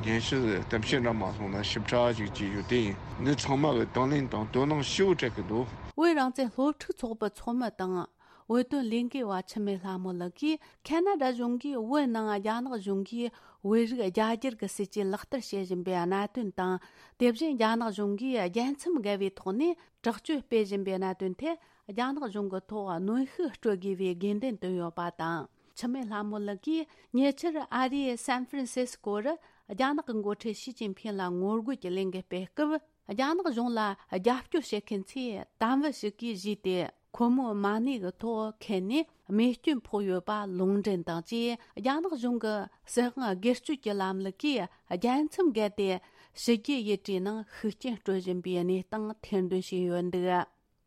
སྙན་ཞུ་གཏམ་བཤད་འདྲ་མ་སོང་ན་ཞིབ་ཕྲ་ཅིག་བྱས་ཡོད། དེ་ཡིན་འདི་ཚང་མ་གི་དང་ལེན་དང་དོ་སྣང་ཞེ་པོ་སྤྲད་ཀྱི་འདུག་བོད་རང་བཙན་སློབ་ཕྲུག་ཚོགས་པའི་ཚོགས་མི་དང་། བོད་དོན་ལས་འགུལ་བ་འཆི་མེད་ལྷ་མོ་ལགས་ཀྱིས་ཁེ་ན་ཌ་གཞུང་གིས་བོད་ནང་རྒྱ་ནག་གཞུང་གིས་བོད་རིགས་རྒྱ་སྒྱུར་གྱི་སྲིད་ཇུས་ལག་བསྟར་བྱེད་བཞིན་པའི་གནད་དོན་དང་། དེ་བཞིན་རྒྱ་ནག་གཞུང་གིས་རྒྱལ་མཚམས་བརྒལ་བའི་ཐོག་ནས་དྲག་སྤྱོད་སྤེལ་བཞིན་པའི་གནད་དོན་ཐད་རྒྱ་ནག་གཞུང་གི་ཐོག་གནོན་ཤུགས་སྤྲོད་དགོས་པའི་དགོས་འདུན་བཏོན་ཡོད་པ་དང་། འཆི་མེད་ལྷ་མོ་ལགས་ཀྱིས་ཉེ་ཆར་ཨ་རིའི་སན་ཧྥ་རན་སིས་ཀོ་རུ་རྒྱ་ནག་གི་འགོ་ཁྲིད་ཞི་ཅིན་ཕིང་ལ་ངོ་རྒོལ་གྱི་ལས་འགུལ་སྤེལ་སྐབས། རྒྱ་ནག་གཞུང་ལ་རྒྱབ་སྐྱོར་བྱེད་མཁན་ཚོས་དམ་བུ་ཞིག་གིས་བཞེས་ཏེ། ཁོ་མོའི་མ་ཎི་གི་ཐོག་ཁེལ་ནས་རྨས་སྐྱོན་ཕོག་ཡོད་པ་ལུང་འདྲེན་དང་བཅས། རྒྱ་ནག་གཞུང་གི་སྲིད་དབང་སྒེར་གཅོད་ཀྱི་ལམ་ལུགས་ཀྱིས་རྒྱལ་མཚམས་བརྒལ་ཏེ། ཕྱི་རྒྱལ་ཡུལ་གྲུའི་ནང་ཤུགས་རྐྱེན་སྤྲོད་བཞིན་པའི་གནས་སྟངས་ཐེར་འདོན་བྱས་ཡོད་འདུག་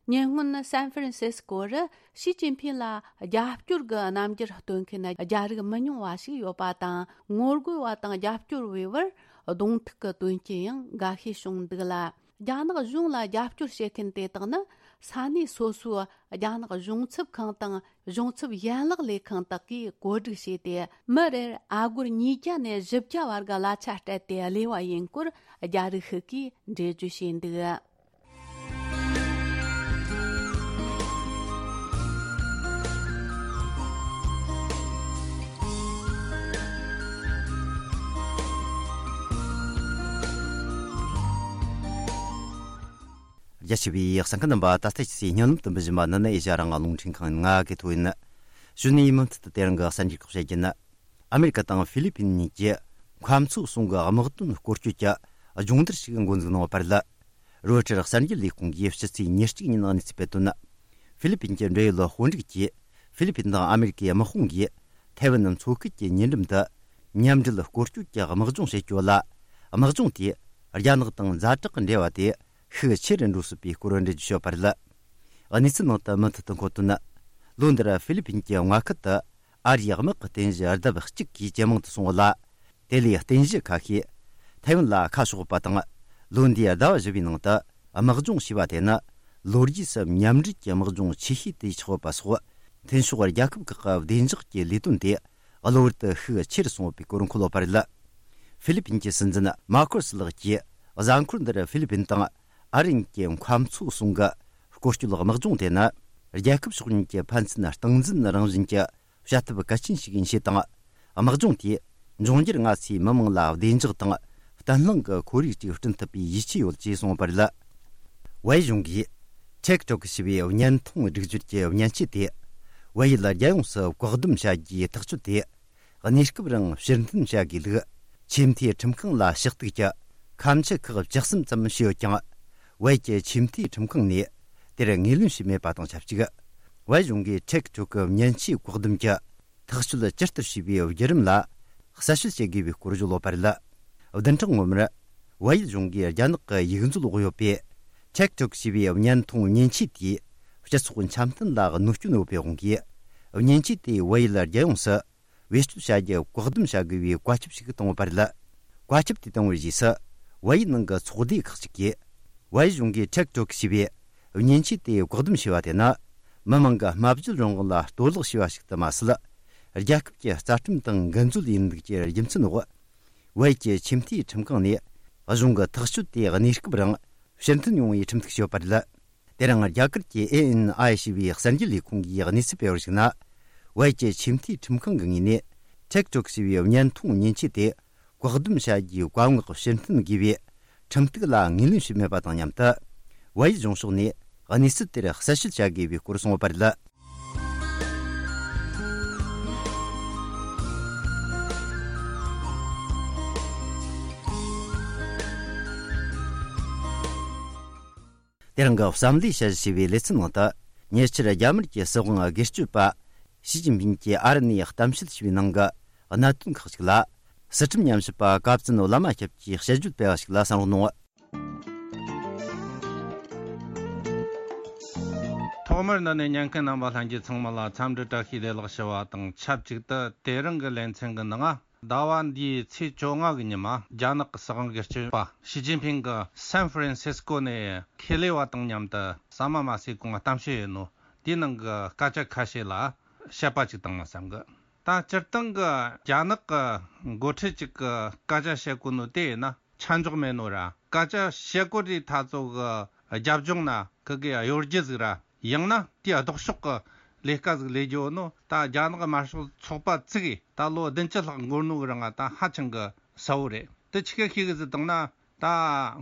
ཉེ་སྔོན་སན་ཧྥ་རན་སིས་ཀོ་རུ་ཞི་ཅིན་ཕིང་ལ་རྒྱབ་སྐྱོར་གྱི་རྣམ་འགྱུར་སྟོན་མཁན་རྒྱ་རིགས་མི་ཉུང་བ་ཞིག་ཡོད་པ་དང་། ངོ་རྒོལ་བ་དང་རྒྱབ་སྐྱོར་བའི་བར་གདོང་ཐུག་གི་དོན་རྐྱེན་ཡང་འགའ་ཤས་བྱུང་འདུག་ལ། རྒྱ་ནག་གཞུང་ལ་རྒྱབ་སྐྱོར་བྱེད་མཁན་དེ་དག་ནི་ས་གནས་སོ་སོའི་རྒྱ་ནག་གཞུང་ཚབ་ཁང་དང་གཞུང་ཚབ་ཡན་ལག་ལས་ཁང་དག་གིས་བཀོད་སྒྲིག་བྱས་ཏེ། མི་རེར་ཨ་སྒོར་ཉིས་བརྒྱ་ནས་བཞི་བརྒྱ་བར་གྱི་གླ་ཆ་སྤྲད་དེ་གླས་པ་ཡིན་སྐོར་རྒྱ་རིགས་ཤིག་གིས་འགྲེལ་བརྗོད་བྱས་འདུག་རྒྱ་ཆེ་བའི་གསན་མཁན་རྣམ་པ། ད་ལྟ་ཁྱེད་ཚོས་སྙན་ལམ་དུ་འབུལ་བཞིན་པ་ནི་ནི་ཨེ་ཤ་ཡ་རང་དབང་རླུང་འཕྲིན་ཁང་ང་གི་ཐོག་ཡིན། གཞུག་ནས་མུ་མཐུད་དུ་དེ་རིང་གི་གསར་འགྱུར་ཁག་བཤད་རྒྱུ་ཡིན། ཨ་མེ་རི་ཀ་དང་ཧྥི་ལི་ཕིན་གཉིས་ཀྱི་མཁའ་མཚོ་གསུམ་གྱི་དམག་དོན་སྐོར་སྐྱོད་ཀྱི་སྦྱོང་བརྡར་ཞིག་འགོ་འཛུགས་གནང་བ་བར་ལ། རོའི་ཊར་གསར་འགྱུར་ལས་ཁུངས་ཀྱིས་ཕྱི་ཚེས་ཉེར་གཅིག་ཉིན་གནས་ཚུལ་སྤེལ་དོན། ཧྥི་ལི་ཕིན་གྱི་འབྲེལ་ཡོད་དཔོན་རིགས་ཀྱིས་ཧྥི་ལི་ཕིན་དང་ཨ་མེ་རི་ཀའི་དམག་དཔུང་གིས་ཐའེ་ཝན་མཚོ་ཁུལ་གྱི་ཉེ་འགྲམ་དུ་མཉམ་འབྲེལ་སྐོར་སྐྱོད་ཀྱི་དམག་སྦྱོང་བྱེད་རྒྱུ་ལ། དམག་སྦྱོང་དེས་རྒྱ་ནག་དང་ཛ་དྲག་གི་འབྲེལ་བ་དེ་ཤུགས་ཆེ་རུ་འགྲོ་སྲིད་པའི་སྐོར་འགྲེལ་བརྗོད་བྱས་པ་རེད། གནས་ཚུལ་ནང་དུ་མུ་མཐུད་དུ་འཁོད་དོན། ལོ་འདིར་ཧྥི་ལི་ཕིན་གྱི་མངའ་ཁུལ་དུ་ཨ་རིའི་དམག་གི་རྟེན་གཞི་ལྡབ་གཅིག་གིས་ཇེ་མང་དུ་སོང་བ་ལ། དེ་ལས་རྟེན་གཞི་ཁ་ཤས་ཐའེ་ཝན་ལ་ཁ་ཕྱོགས་པ་དང་། ལོ་འདིའི་ཟླ་བ་བཞི་པའི་ནང་དུ་དམག་སྦྱོང་བྱས་པ་དེ་ནི་ལོ་རྒྱུས་སུ་མཉམ་འབྲེལ་གྱི་དམག་སྦྱོང་ཆེ་ཤོས་དེ་ཆགས་ཡོད་པ་སོགས། མཐུན་ཕྱོགས་རྒྱལ་ཁབ་ཁག་གི་བདེ་འཇགས་ཀྱི་ལས་དོན་དེ་གློ་བུར་དུ་ཤུགས་ཆེ་རུ་སོང་ཡོད་པའི་སྐོར་འཁོད་ཡོད་པ་རེད། ཧྥི་ལི་ཕིན་གྱི་སྲིད་འཛིན་མཱ་ཁོ་སི་ལགས་ཀྱིས་གཟའ་འཁོར་འདིར་ཧྥི་ལི་ཕིན་དང་ཨ་རི་གཉིས་ཀྱི་མཁའ་མཚོ་གསུམ་གྱི་སྐོར་སྐྱོད་དམག་སྦྱོང་དེ་ནི་རྒྱལ་ཁབ་ཕྱོགས་གཉིས་ཀྱི་ཕན་ཚུན་སྟངས་འཛིན་རང་བཞིན་གྱི་བྱ་ཐབས་གལ་ཆེན་ཞིག་ཡིན་ཞེས་དང་། དམག་སྦྱོང་དེས་འབྱུང་འགྱུར་སྔ་ཕྱིའི་མི་དམངས་ལ་བདེ་འཇགས་དང་བརྟན་ལྷིང་གི་ཁོར་ཡུག་ཅིག་བསྐྲུན་ཐུབ་པའི་ཡིད་ཆེས་ཡོད་ཅེས་གསུངས་པ་རེད། ཝེ་གཞུང་གིས་ཊིག་ཊོག་ཞེས་པའི་བརྙན་ཐུང་སྒྲིག་སྦྱོར་གྱི་མཉེན་ཆས་དེ་ཝེ་ཡུལ་རྒྱལ་ཡོངས་སུ་བཀག་སྡོམ་བྱ་རྒྱུའི་ཐག་གཅོད་དེ། གནས་སྐབས་རིང་ཕྱིར་འཐེན་བྱ་དགོས་ལུགས། ཆེས་མཐོའི་ཁྲིམས་ཁང་ལ་ཕྱག་གཏུག་གྱི་ཁ་མཆུ་ཁག་བཅུ་གསུམ་ཙམ་བྱས་ཡོད་ཀྱང་། ཝེ་ཡི་ཆེས་མཐོའི་ཁྲིམས་ཁང་ནས་དེར་ངོས་ལེན་བྱས་མེད་པ་དང་ཆབས་ཅིག། ཝེ་གཞུང་གིས་ཊིག་ཊོག་གི་མཉེན་ཆས་བཀག་སྡོམ་གྱི་ཐག་གཅོད་ཇི་ལྟར་བྱས་པའི་བརྒྱུད་རིམ་ལ་གསལ་བཤད་བྱེད་དགོས་པའི་སྐོར་བརྗོད་ཡོད་པ་རེད། བདུན་ཕྲག་སྔོན་མར་ཝེ་ཡི་གཞུང་གིས་རྒྱ་ནག་གི་ཡིག་འཛུལ་འོག་ཡོད་པའི་ཊིག་ཊོག་ཞེས་པའི་བརྙན་ཐུང་མཉེན་ཆས་དེས་སྤྱི་ཚོགས་འཆམ་མཐུན་ལ་གནོད་སྐྱོན་ཡོད་པའི་དབང་གིས། མཉེན་ཆས་དེས་ཝེ་ཡི་རྒྱལ་ཡོངས་སུ། བེད་སྤྱོད་བྱ་རྒྱུ་བཀག་སྡོམ་བྱ་དགོས་པའི་བཀའ་ཁྱབ་ཞིག་བཏང་ཡོད་པ་རེད། བཀའ་ཁྱབ་དེ་བཏང་བའི་རྗེས་སུ། ཝེ་ཡི་ནང་གི་ཚོགས་སྡེ་ཁག་ཅིག་གིས། ཝེ་ཡི་གཞུང་གིས་ཊིག་ཊོག་ཞེས་པའི་མཉེན་ཆས་དེ་བཀག་སྡོམ་བྱས་པ་དེ་ནི། མི་དམངས་ཀྱི་སྨྲ་བརྗོད་རང་དབང་ལ་གཏོར་བརླག་བྱས་པ་ཞིག་ཏུ་མ་ཟད། རྒྱལ་ཁབ་ཀྱི་རྩ་ཁྲིམས་དང་འགལ་འཛོལ་ཡིན་ལུགས་ཀྱི་རྒྱུ་མཚན་འོག། ཝེ་ཡི་ཆེས་མཐོའི་ཁྲིམས་ཁང་ནས། གཞུང་གི་ཐག་གཅོད་དེ་གནས་སྐབས་རིང་ཕྱིར་འཐེན་ཡོང་བའི་ཁྲིམས་གཏུག་བྱས་ཡོད་པ་རེད། དེ་རིང་རྒྱ་གར་གྱི་ཨེ་ཨེན་ཨའི་ཞེས་པའི་གསར་འགྱུར་ལས་ཁུངས་ཀྱིས་གནས་ཚུལ་སྤེལ་བར་གཞིགས་ན། ཝེ་ཡི་ཆེས་མཐོའི་ཁྲིམས་ཁང་གི་ངོས་ནས་ཊིག་ཊོག་ཞེས་པའི་བརྙན་ཐུང་མཉེན་ཆས་དེ་བཀག་སྡོམ་བྱ་རྒྱུའི་བཀའ་མངག་ཕྱིར་འཐེན་དགོས་པའི་ཁྲིམས་གཏུག་ལ་ངོས་ལེན་བྱས་མེད་པ་དང་མཉམ་དུ། ཝེ་ཡི་གཞུང་ཕྱོགས་ནས་གནས་ཚུལ་དེར་གསལ་བཤད་བྱ་དགོས་པའི་སྐོར་གསུངས་ཡོད་པ་རེད། དེ་རིང་གི་བསམ་བློའི་དཔྱད་གཞི་ཞེས་པའི་ལེ་ཚན་ནང་དུ། ཉེ་ཆར་རྒྱ་དམར་གྱི་སྲིད་དབང་སྒེར་གཅོད་པ་ཞི་ཅིན་ཕིན་གྱིས་ཨ་རི་ནས་གཏམ་བཤད་བྱས་པའི་ནང་གི་གནད་དོན་ཁག་ཅིག་ལ། སི་ཁྲོན་ཉམས་ཞིབ་པ་ཀ་བཙུན་བླ་མ་སྐྱབས་ཀྱིས་དཔྱད་བརྗོད་སྤེལ་བ་ཞིག་ལ་གསན་རོགས་གནང་། ཐོག་མར་འདི་ནས་ཉན་མཁན་རྣམ་པ་ལྷན་རྒྱས་ཚང་མ་ལ་འཚམས་འདྲི་བཀྲ་ཤིས་བདེ་ལེགས་ཞུ་བ་དང་ཆབས་ཅིག་ཏུ། དེ་རིང་གི་ལེ་ཚན་གྱི་ནང་། ཟླ་བ་འདིའི་ཚེས་བཅོ་ལྔ་གི་ཉི་མ། རྒྱ་ནག་གི་སྲིད་དབང་སྒེར་གཅོད་པ་ཞི་ཅིན་ཕིང་གིས་སན་ཧྥ་རན་སིས་ཀོ་ནས་ཁེ་ལས་པ་དང་མཉམ་དུ་ཟ་མ་མ་ཟོས་གོང་གཏམ་བཤད་ཡོད་ནོ། དེའི་ནང་གི་སྐད་ཆ་ཁ་ཤས་ལ་དཔྱད་པ་ཅིག་བཏང་ན་བསམ་གི། ད་སྤྱིར་བཏང་གི་རྒྱ་ནག་གི་འགོ་ཁྲིད་ཅིག་གིས་སྐད་ཆ་བཤད་གོ་ནོ་དེ་ཡིན་ན་ཆ་འཇོག་མེད་ནོ་ར། སྐད་ཆ་བཤད་གོ་དུས་ཐ་ཚོ་གི་རྒྱབ་ལྗོངས་ན་ཁི་གི་གཡོ་སྒྱུ་ཟིག་ར། ཡང་ན་དེའི་ལྡོག་ཕྱོགས་ཀྱི་ལས་ཀ་ཟིག་ལས་རྒྱུ་ནོ། ད་རྒྱ་ནག་དམར་ཤོག་ཚོགས་པ་བཙུགས་ཡི་ད་ལོ་བདུན་ཅུ་ལྷག་འགོར་ནོ་གི་རིང་ང་ད་ཧ་ཅང་གི་གསལ་བོ་རེད། དེ་ཆི་གི་ཤེས་གི་ཟིག་བཏང་ན། ད་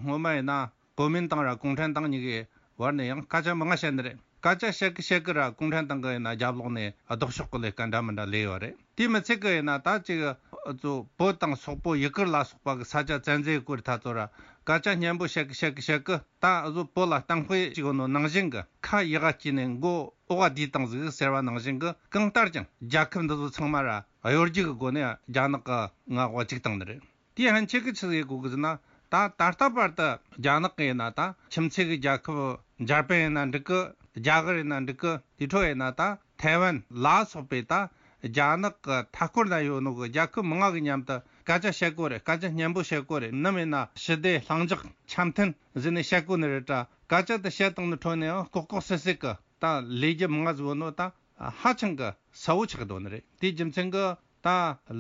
སྔོན་མ་ཡིན་ན་གོ་མིན་ཏང་ར་གུང་ཁྲན་ཏང་གཉིས་ཀའི་བར་ནས་ཡང་སྐད་ཆ་མང་ང་བཤད་ནི་རེད། སྐད་ཆ་བཤད་གི་བཤད་གི་ར་གུང་ཁྲན་ཏང་གི་ཡིན་ན་རྒྱབ་ལོགས་ནས་ལྡོག་ཕྱོགས་གི་ལས་ཀ་འདྲ་མི་འདྲ་ལས་ཡོད་རེད། དེ་མི་ཚད་གི་ཡིན་ན་ད་ཅིག་ཨ་ཚོ་བོད་དང་སོག་པོ་ཡུ་གུར་ལ་སོགས་པ་གི་ས་ཆ་བཙན་འཛུལ་སྐོར་ཐ་ཚོ་ར་སྐད་ཆ་སྙན་པོ་བཤད་གི་བཤད་གི་བཤད་གི། ད་ཨ་ཚོ་བོད་ལ་གཏམ་དཔེ་ཅིག་ཡོད་ནོ་ནང་བཞིན་གི་ཁ་ཡི་ག་བསྐྱིས་ནས་མགོ་འོག་ག་བསྡུས་བཏང་ཟིག་ཟེར་བ་ནང་བཞིན་གི། གང་ལྟར་ཀྱང་རྒྱལ་ཁབ་འདི་ཚོ་ཚང་མ་ར་གཡོ་སྒྱུ་གི་སྒོ་ནས་རྒྱ་ནག་གི་མངའ་འོག་བཅུག་བཏང་ནི་རེད། དེའི་ཕན་ཆད་གི་ཆི་ཟིག་ཡེད་དགོས་གི་ཟེར་ན། ད་ད་ལྟ་བར་དུ་རྒྱ་ནག་གི་ཡིན་ན་ད་ཁྱིམ་མཚེས་གི་རྒྱལ་ཁབ་འཇར་པན་ཡིན་ན་འགྲིག་གི། རྒྱ་གར་ཡིན་ན་འགྲིག་གི། དེ་འཕྲོ་ཡིན་ན་ད་ཐའེ་ཝན་ལ་སོགས་པའི་ད་རྒྱ་ནག་གི་མཐའ་སྐོར་ན་ཡོད་ནོ་གི་རྒྱལ་ཁབ་མང་ང་གི་མཉམ་དུ་སྐད་ཆ་བཤད་དགོས་རེད། སྐད་ཆ་སྙན་པོ་བཤད་དགོས་རེད། ནམ་ཡིན་ན་ཞི་བདེ་ལྷིང་འཇགས་འཆམ་མཐུན་ཟེར་ནས་བཤད་དགོས་ནི་རེད་དྲ། སྐད་ཆ་དེ་བཤད་བཏང་ནི་འཕྲོ་ནས་ཡང་ལྐོག་ལྐོག་སི་སི་གི་ད་ལས་རྒྱུ་མང་ང་ཟིག་ཡོད་ནོ་ད་ཧ་ཅང་གི་གསལ་བོ་ཆགས་འདུག་ནི་རེད། དེའི་རྒྱུ་མཚན་གི་ད་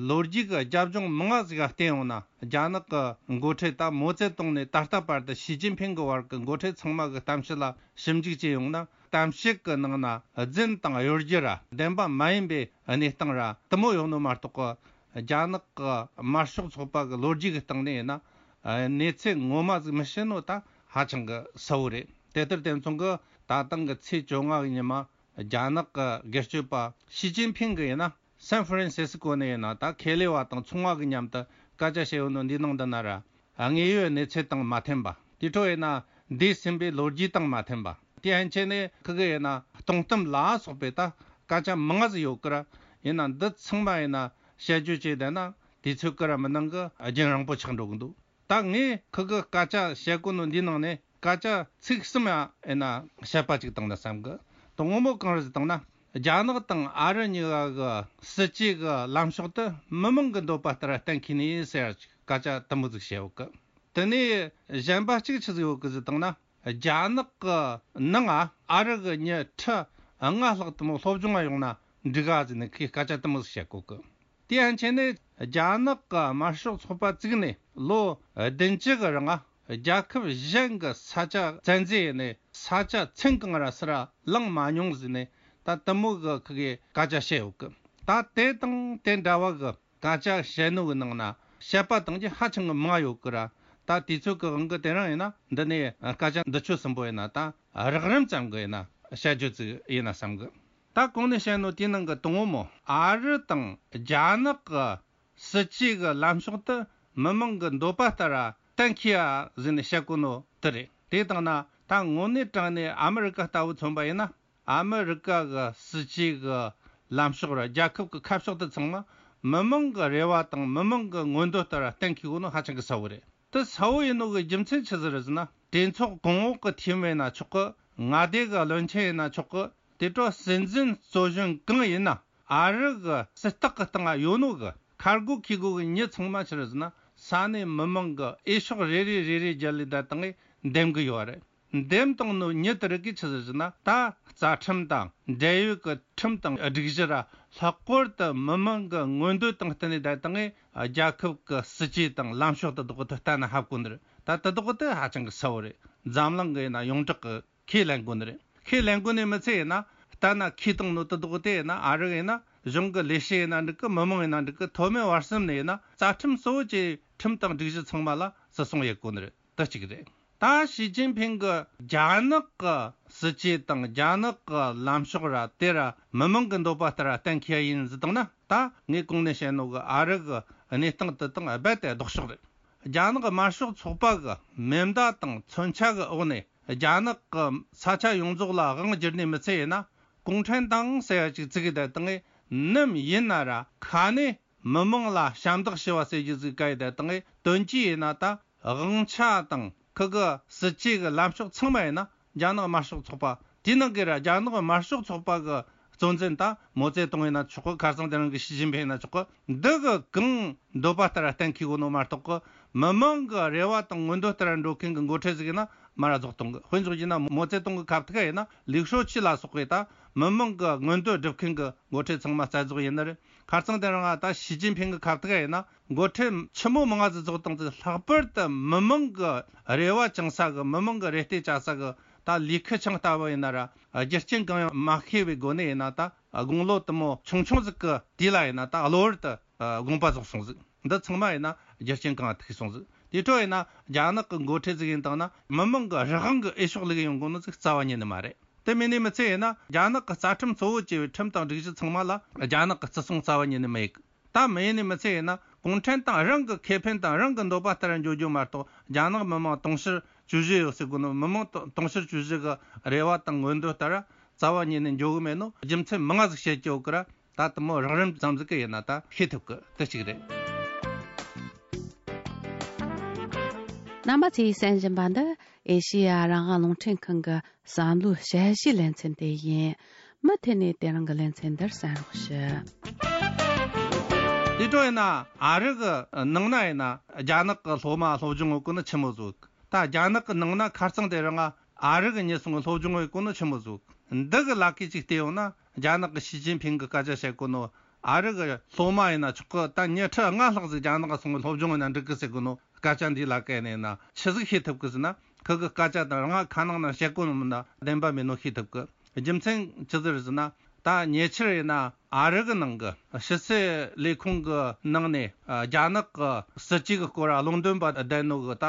ལོ་རྒྱུས་ཀྱི་རྒྱབ་ལྗོངས་མང་ང་ཟིག་ག་བལྟས་ཡོང་ན། རྒྱ་ནག་གི་འགོ་ཁྲིད་ད་མའོ་ཙེ་ཏུང་ནས་ད་ལྟ་བར་དུ་ཞི་ཅིན་ཕིང་གི་བར་གྱི་འགོ་ཁྲིད་ཚང་མ་གི་གཏམ་བཤད་ལ་ཞིབ་འཇུག་བྱས་ཡོང་ན། གཏམ་བཤད་ཀྱི་ནང་ན་རྫུན་དང་གཡོ་སྒྱུ་ར་བདེན་པ་མ་ཡིན་པའི་གནས་སྟངས་ར་དེ་མོ་ཡོད་ནོ་མ་གཏོགས་གི། རྒྱ་ནག་གི་དམར་ཤོག་ཚོགས་པ་གི་ལོ་རྒྱུས་ཀྱི་སྟེང་ནས་ཡིན་ན་གནས་ཚུལ་ངོ་མ་ཟིག་མི་ཤེས་ནོ་ད་ཧ་ཅང་གི་གསལ་བོ་རེད། དེ་ལྟར་དེ་མཚུངས་གི་ད་ཐེངས་གི་ཚེས་བཅོ་ལྔ་གི་ཉི་མ། རྒྱ་ནག་གི་སྒེར་གཅོད་པ་ཞི་ཅིན་ཕིང་གི་ཡིན་ན། སན་ཧྥ་རན་སི་སི་ཀོ་ནས་ཡིན་ན་ད་ཁེ་ལས་པ་དང་ཚོང་བ་གི་མཉམ་དུ་སྐད་ཆ་བཤད་ཡོད་ནོ་འདི་ནང་འདི་ན་ར། དངོས་ཡོད་གནས་ཚུལ་དང་མ་མཐུན་པ། དེ་འཕྲོ་ཡིན་ན་འདས་ཟིན་པའི་ལོ་རྒྱུས་དང་མ་མཐུན་པ། དེ་ཡན་ཆད་ནས་ཁི་གི་ཡིན་ན་སྟོང་གཏམ་ལ་སོགས་པའི་ད་སྐད་ཆ་མང་ང་ཟིག་ཡོད་ཀི་ར། ཡིན་ན་འདི་ཚང་མ་ཡིན་ན་བཤད་རྒྱུ་བྱས་བསྡད་ན་དུས་ཚོད་ཀི་ར་མི་འདང་གི་རྒྱུན་རིང་པོ་ཆགས་འགྲོ་གི་འདུག་ད་ངས་ཁི་གི་སྐད་ཆ་བཤད་གོ་ནོ་འདི་ནང་ནས་སྐད་ཆ་ཚིག་གསུམ་ཡང་ཡིན་ན་བཤད་པ་ཅིག་བཏང་ན་བསམ་གི། དང་པོ་མོ་གང་རེད་ཟེར་བཏང་ན། རྒྱ་ནག་དང་ཨ་རི་གཉིས་ཀ་གི་སྲིད་ཇུས་གི་ལམ་ཕྱོགས་དེ་མི་མང་གི་འདོད་པ་ལྟར་གཏན་འཁེལ་ནི་ཟེར་སྐད་ཆ་དུ་མོ་ཟིག་བཤད་ཡོད་གི། དེ་ནས་གཞན་པ་གཅིག་ཆི་ཟིག་ཡོད་གི་ཟེར་བཏང་ན། རྒྱ་ནག་གི་ནང་ང་ཨ་རི་གི་མྱི་ཁྲི་ལྔ་ལྷག་དུ་མོ་སློབ་སྦྱོང་ང་ཡོང་ན་འགྲིག་ག་ཟེར་ནས་ཁོས་སྐད་ཆ་དུ་མོ་ཟིག་བཤད་གོ་གི། དེ་ཡན་ཆད་ནས་རྒྱ་ནག་གི་དམར་ཤོག་ཚོགས་པ་བཙུགས་ནས་ལོ་བདུན་ཅུ་གི་རིང་རྒྱལ་ཁབ་གཞན་གྱི་ས་ཆ་བཙན་འཛུལ་ཡས་ནས་ས་ཆ་ཚན་གང་ར་སུ་ར་བླངས་མ་མྱོང་ཟེར་ནས་ད་དུ་མོ་གི་ཁི་གི་སྐད་ཆ་བཤད་ཡོད་གི། ད་དེ་དང་དེ་འདྲ་བ་གི་སྐད་ཆ་བཤད་ནོ་གི་ནང་ན་བཤད་པ་དང་གི་ཧ་ཅང་གི་མང་ཡོད་གི་ར། ད་དུས་ཚོད་གི་དབང་གི་དེ་རིང་ཡིན་ན་འདི་ནས་སྐད་ཆ་འདི་ཆོ་གསུམ་པོ་ཡིན་ན་ད་རགས་རིམ་ཙམ་གི་ཡིན་ན་བཤད་རྒྱུ་ཙིག་ཡིན་ན་བསམ་གི། ད་གོང་ནས་བཤད་ནོ་དེའི་ནང་གི་དང་པོ་མོ་ཨ་རི་དང་རྒྱ་ནག་གི་སྲིད་ཇུས་གི་ལམ་ཕྱོགས་དེ་མི་མང་གི་འདོད་པ་ལྟར་གཏན་འཁེལ་ཡ་ཟེར་ནས་བཤད་གོ་ནོ་དེ་རེད། དེ་བཏང་ན་ད་དངོས་གནས་དྲང་གནས་ཨ་མི་རི་ཀ་ལྟ་བུ་མཚོན་པ་ཡིན་ན། ཨ་མི་རི་ཀ་གི་སྲིད་ཇུས་གི་ལམ་ཕྱོགས་ར་རྒྱལ་ཁབ་གི་ཁ་ཕྱོགས་དེ་ཚང་མ་མི་མང་གི་རེ་བ་དང་མི་མང་གི་མངོན་འདོད་ལྟར་གཏན་འཁེལ་གོ་ནོ་ཧ་ཅང་གི་གསལ་བོ་རེད། དེ་གསལ་བོ་ཡིན་ནོ་གི་རྒྱུ་མཚན་ཆི་ཟིག་རེད་ཟེར་ན། གྲོས་ཚོགས་གོང་འོག་གི་འཐུས་མི་ཡིན་ན་ཆོག་གི། མངའ་སྡེ་གི་བློན་ཆེན་ཡིན་ན་ཆོག་གི། དེ་འཕྲོ་སྲིད་འཛིན་གཙོ་གཞོན་གང་ཡིན་ན་ཨ་རི་གི་སྲིད་ཐག་གི་སྟེང་ང་ཡོད་ནོ་གི་ཁ་རྒོ་ཁེ་རྒོ་གི་མྱི་ཚང་མ་ཆི་རེད་ཟེར་ན་ས་གནས་མི་མང་གི་འོས་ཤོག་རེ་རེ་རེ་རེ་བརྒྱབ་ལས་ད་བཏང་ངས་འདེམས་གི་ཡོད་རེད། འདེམས་བཏང་ནོ་མྱི་དེ་རིགས་ཀྱིས་ཆི་ཟེར་ཟེར་ན། ད་རྩ་ཁྲིམས་དང་འབྲེལ་ཡོད་ཀྱི་ཁྲིམས་དང་སྒྲིག་གཞི་ར་ལྷག་པར་དུ་མི་མང་གི་མངོན་འདོད་དང་བསྟུན་ནས་ད་བཏང་ངས་རྒྱལ་ཁབ་ཀྱི་སྲིད་ཇུས་དང་ལམ་ཕྱོགས་དེ་དག་དེ་གཏན་ན་ཕབ་དགོས་ནི་རེད། ད་དེ་དག་དེ་ཧ་ཅང་གི་གསལ་བོ་རེད། འཛམ་གླིང་གི་ཡིན་ན་ཡོངས་གྲགས་ཀྱི་ཁས་ལེན་དགོས་ནི་རེད། ཁས་ལེན་དགོས་ནི་མི་ཚད་ཡིན་ན་གཏན་ན་ཁས་བཏང་ནོ་དེ་དག་དེ་ཡིན་ན་ཨ་རི་ཡིན་ན་གཞུང་གི་ལས་བྱེད་ཡིན་ན་འགྲིག་གི། མི་མང་ཡིན་ན་འགྲིག་གི། མཐོ་དམན་བར་གསུམ་ནས་ཡིན་ན་རྩ་ཁྲིམས་གཙོ་བོ་བཅས་ཁྲིམས་དང་སྒྲིག་གཞི་ཚང་མ་ལ་བརྩི་སྲུང་ཡེད་དགོས་ནི་རེད། དེ་གཅིག་རེད། ད་ཞི་ཅིན་ཕིང་གི་རྒྱ་ནག་གི་སྲིད་ཇུས་དང་རྒྱ་ནག་གི་ལམ་ཕྱོགས་ར་དེ་ར་མི་མང་གི་འདོད་པ་ལྟར་གཏན་འཁེལ་ཡིན་ཟེར་བཏང་ན། ད་ངས་གོང་ནས་བཤད་ནོ་གི་ཨ་རི་གི་གནས་སྟངས་དེ་དང་རྦད་དེ་ལྡོག་ཕྱོགས་རེད། རྒྱ་ནག་གི་དམར་ཤོག་ཚོགས་པ་གི་མེ་མདའ་དང་མཚོན་ཆ་གི་འོག་ནས་རྒྱ་ནག་གི་ས་ཆ་ཡོངས་རྫོགས་ལ་དབང་བསྒྱུར་ནས་མི་ཚད་ཡིན་ན། གུང་ཁྲན་ཏང་ཟེར་ཡ་ཅིག་བཙུགས་གི་ད་བཏང་ངས་ནམ་ཡིན་ན་ར་ཁ་ནས་མི་མང་ལ་ཞབས་འདེགས་ཞུ་བ་ཟེར་རྒྱུ་ཟིག་ག་ཡི་ད་བཏང་ངས་དོན་གྱིས་ཡིན་ན་ད་དབང་ཆ་དང་ཁི་གི་སྲིད་ཇུས་གི་ལམ་ཕྱོགས་ཚང་མ་ཡིན་ན་རྒྱ་ནག་དམར་ཤོག་ཚོགས་པ། དེའི་ནང་གི་ར་རྒྱ་ནག་དམར་ཤོག་ཚོགས་པ་གི་གཙོ་འཛིན་ད་མའོ་ཙེ་ཏུང་ཡིན་ན་ཆོག་གི། ཁ་སང་དེ་རིང་གི་ཞི་ཅིན་ཕིང་ཡིན་ན་ཆོག་གི། འདི་གི་གང་འདོད་པ་ལྟར་གཏན་འཁེལ་གོ་ནོ་མ་གཏོགས་གི། མི་མང་གི་རེ་བ་དང་མངོན་འདོད་ལྟར་འགྲོ་མཁན་གི་འགོ་ཁྲིད་ཟིག་ཡིན་ན་མ་ར་རྫོགས་གཏོང་གི། དཔེ་འཇོག་རྒྱུ་ན་མའོ་ཙེ་ཏུང་གི་ཁ་ཐུག་ཡིན་ན་ལིའུ་ཧྲོ་ཆི་ལ་སོགས་པའི་ད་མི་མང་གི་མངོན་འདོད་སྒྲུབ་མཁན་གི་འགོ་ཁྲིད་ཚང་མ་རྩ་རྫོགས་ཡིན་ནི་རེད། ཁ་སང་དེ་རིང་ད་ཞི་ཅིན་ཕིང་གི་ཁ་ཐུག་ཡིན་ན་འགོ་ཁྲིད་ཆི་མོ་མང་ང་ཟིག་རྫོགས་བཏང་ཚེ་ལྷག་པར་དུ་མི་མང་གི་རེ་བ་བཅང་ས་གི། མི་མང་གི་རེ་ལྟོས་བཅའ་ས་གི་ད་ལི་ཁེ་ཆང་ལྟ་བུ་ཡིན་ན་ར་རྒྱུ་རྐྱེན་གང་ཡང་མ་ཤེས་པའི་སྒོ་ནས་ཡིན་ན་ད་དགུང་ལོ་དུ་མོ་ཆུང་ཆུང་ཟིག་གི་དུས་ལ་ཡིན་ན་ད་གློ་བུར་དུ་དགོངས་པ་རྫོགས་སོང་ཟིག། འདི་ཚང་མ་ཡིན་ན་རྒྱུ་རྐྱེན་གང་ཐུག་སོང་ཟིག། དེ་འཕྲོ་ཡིན་ན་རྒྱ་ནག་གི་འགོ་ཁྲིད་ཟིག་ཡིན་བཏང་ན་མི་མང་གི་རང་གི་འོས་ཤོག་ལུག་ཡོང་གོ་ནོ་ཟིག་རྩ་བ་ཉིད་ནས་མ་རེད། དེ་མིན་ནས་མི་ཚད་ཡིན་ན་རྒྱ་ནག་གི་རྩ་ཁྲིམས་གཙོ་བོ་བྱས་པའི་ཁྲིམས་དང་སྒྲིག་གཞི་ཚང་མ་ལ་རྒྱ་ནག་གི་བརྩི་སྲུང་རྩ་བ་ཉིད་ནས་མི་ཡེད་གི། ད་མི་ཡིན་ནས་མི་ཚད་ཡིན་ན་གུང་ཁྲན་ཏང་རང་གི་ཁེ་ཕན་དང་རང་གི་འདོད་པ་ལྟར་འགྱོ་རྒྱུ་མ་གཏོགས། རྒྱ་ནག་མི་དམངས་དུང་ཕྱུར་བཅུ་བཞི་ཡོད་ཟེར་གོ་ནོ་མི་དམངས་དུང་ཕྱུར་བཅུ་བཞི་གི་རེ་བ་དང་མངོན་འདོད་ལྟར་རྩ་བ་ཉིད་ནས་འགྱོ་གི་མེད་ནོ་རྒྱུ་མཚན་མང་ང་ཟིག་བཤད་ཀྱི་ཡོད་གི་ར། ད་དུ་མོ་རགས་རིམ་ཙམ་ཟིག་གི་ཡིན་ན་ད་ཤེས་ཐུབ་གི། དེ་གཅིག་རེད། རྣམ་པ་ཚོས་གསན་བཞིན་པ་འདི་ཨེ་ཤེ་ཡ་རང་དབང་རླུང་འཕྲིན་ཁང་གི་བསམ་བློའི་དཔྱད་གཞིའི་ལེ་ཚན་དེ་ཡིན། མུ་མཐུད་ནས་དེ་རིང་གི་ལེ་ཚན་འདིར་གསན་རོགས་ཞུ། དེ་འཕྲོ་ཡིན་ན་ཨ་རི་གི་ནང་ན་ཡིན་ན་རྒྱ་ནག་གི་སློབ་མ་སློབ་སྦྱོང་ཡོད་གོ་ནི་ཆི་མོ་ཟིག། ད་རྒྱ་ནག་གི་ནང་ན་ཁ་རྩང་དེ་རིང་ཨ་རི་གི་མྱི་སོང་གི་སློབ་སྦྱོང་ཡོད་གོ་ནི་ཆི་མོ་ཟིག། འདི་གི་ལ་ཁེ་ཅིག་བལྟས་ཡོང་ན་རྒྱ་ནག་གི་ཞི་ཅིན་ཕིང་གི་སྐད་ཆ་བཤད་གོ་ནོ། ཨ་རི་གི་སློབ་མ་ཡིན་ན་ཆོག་གི། ད་ཉི་ཁྲི་ལྔ་ལྷག་ཟིག་རྒྱ་ནག་ག་སོང་གི་སློབ་སྦྱོང་ཡིན་ན་འགྲིག་གི་ཟེར་གོ་ནོ་སྐད་ཆ་འདི་ལ་བཀལ་ནས་ཡིན་ན་ཆི་ཟིག་ཤེས་ཐུབ་གི་ཟེར་ན། ཁི་གི་སྐད་ཆ་དང་རང་ཁ་ནང་ན་བཤད་གོ་ནོ་མིན་ན་བདེན་པ་མིན་ནོ་ཤེས་ཐུབ་གི། རྒྱུ་མཚན་ཆི་ཟིག་རེད་ཟེར་ན། ད་ཉེ་ཆར་ཡིན་ན་ཨ་རི་གི་ནང་གི་ཕྱི་སྲིད་ལས་ཁུངས་གི་ནང་ནས་རྒྱ་ནག་གི་སྲིད་ཇུས་གི་སྐོར་བློ་འདོན་པ་བསྡད་ནོ་གི་ད་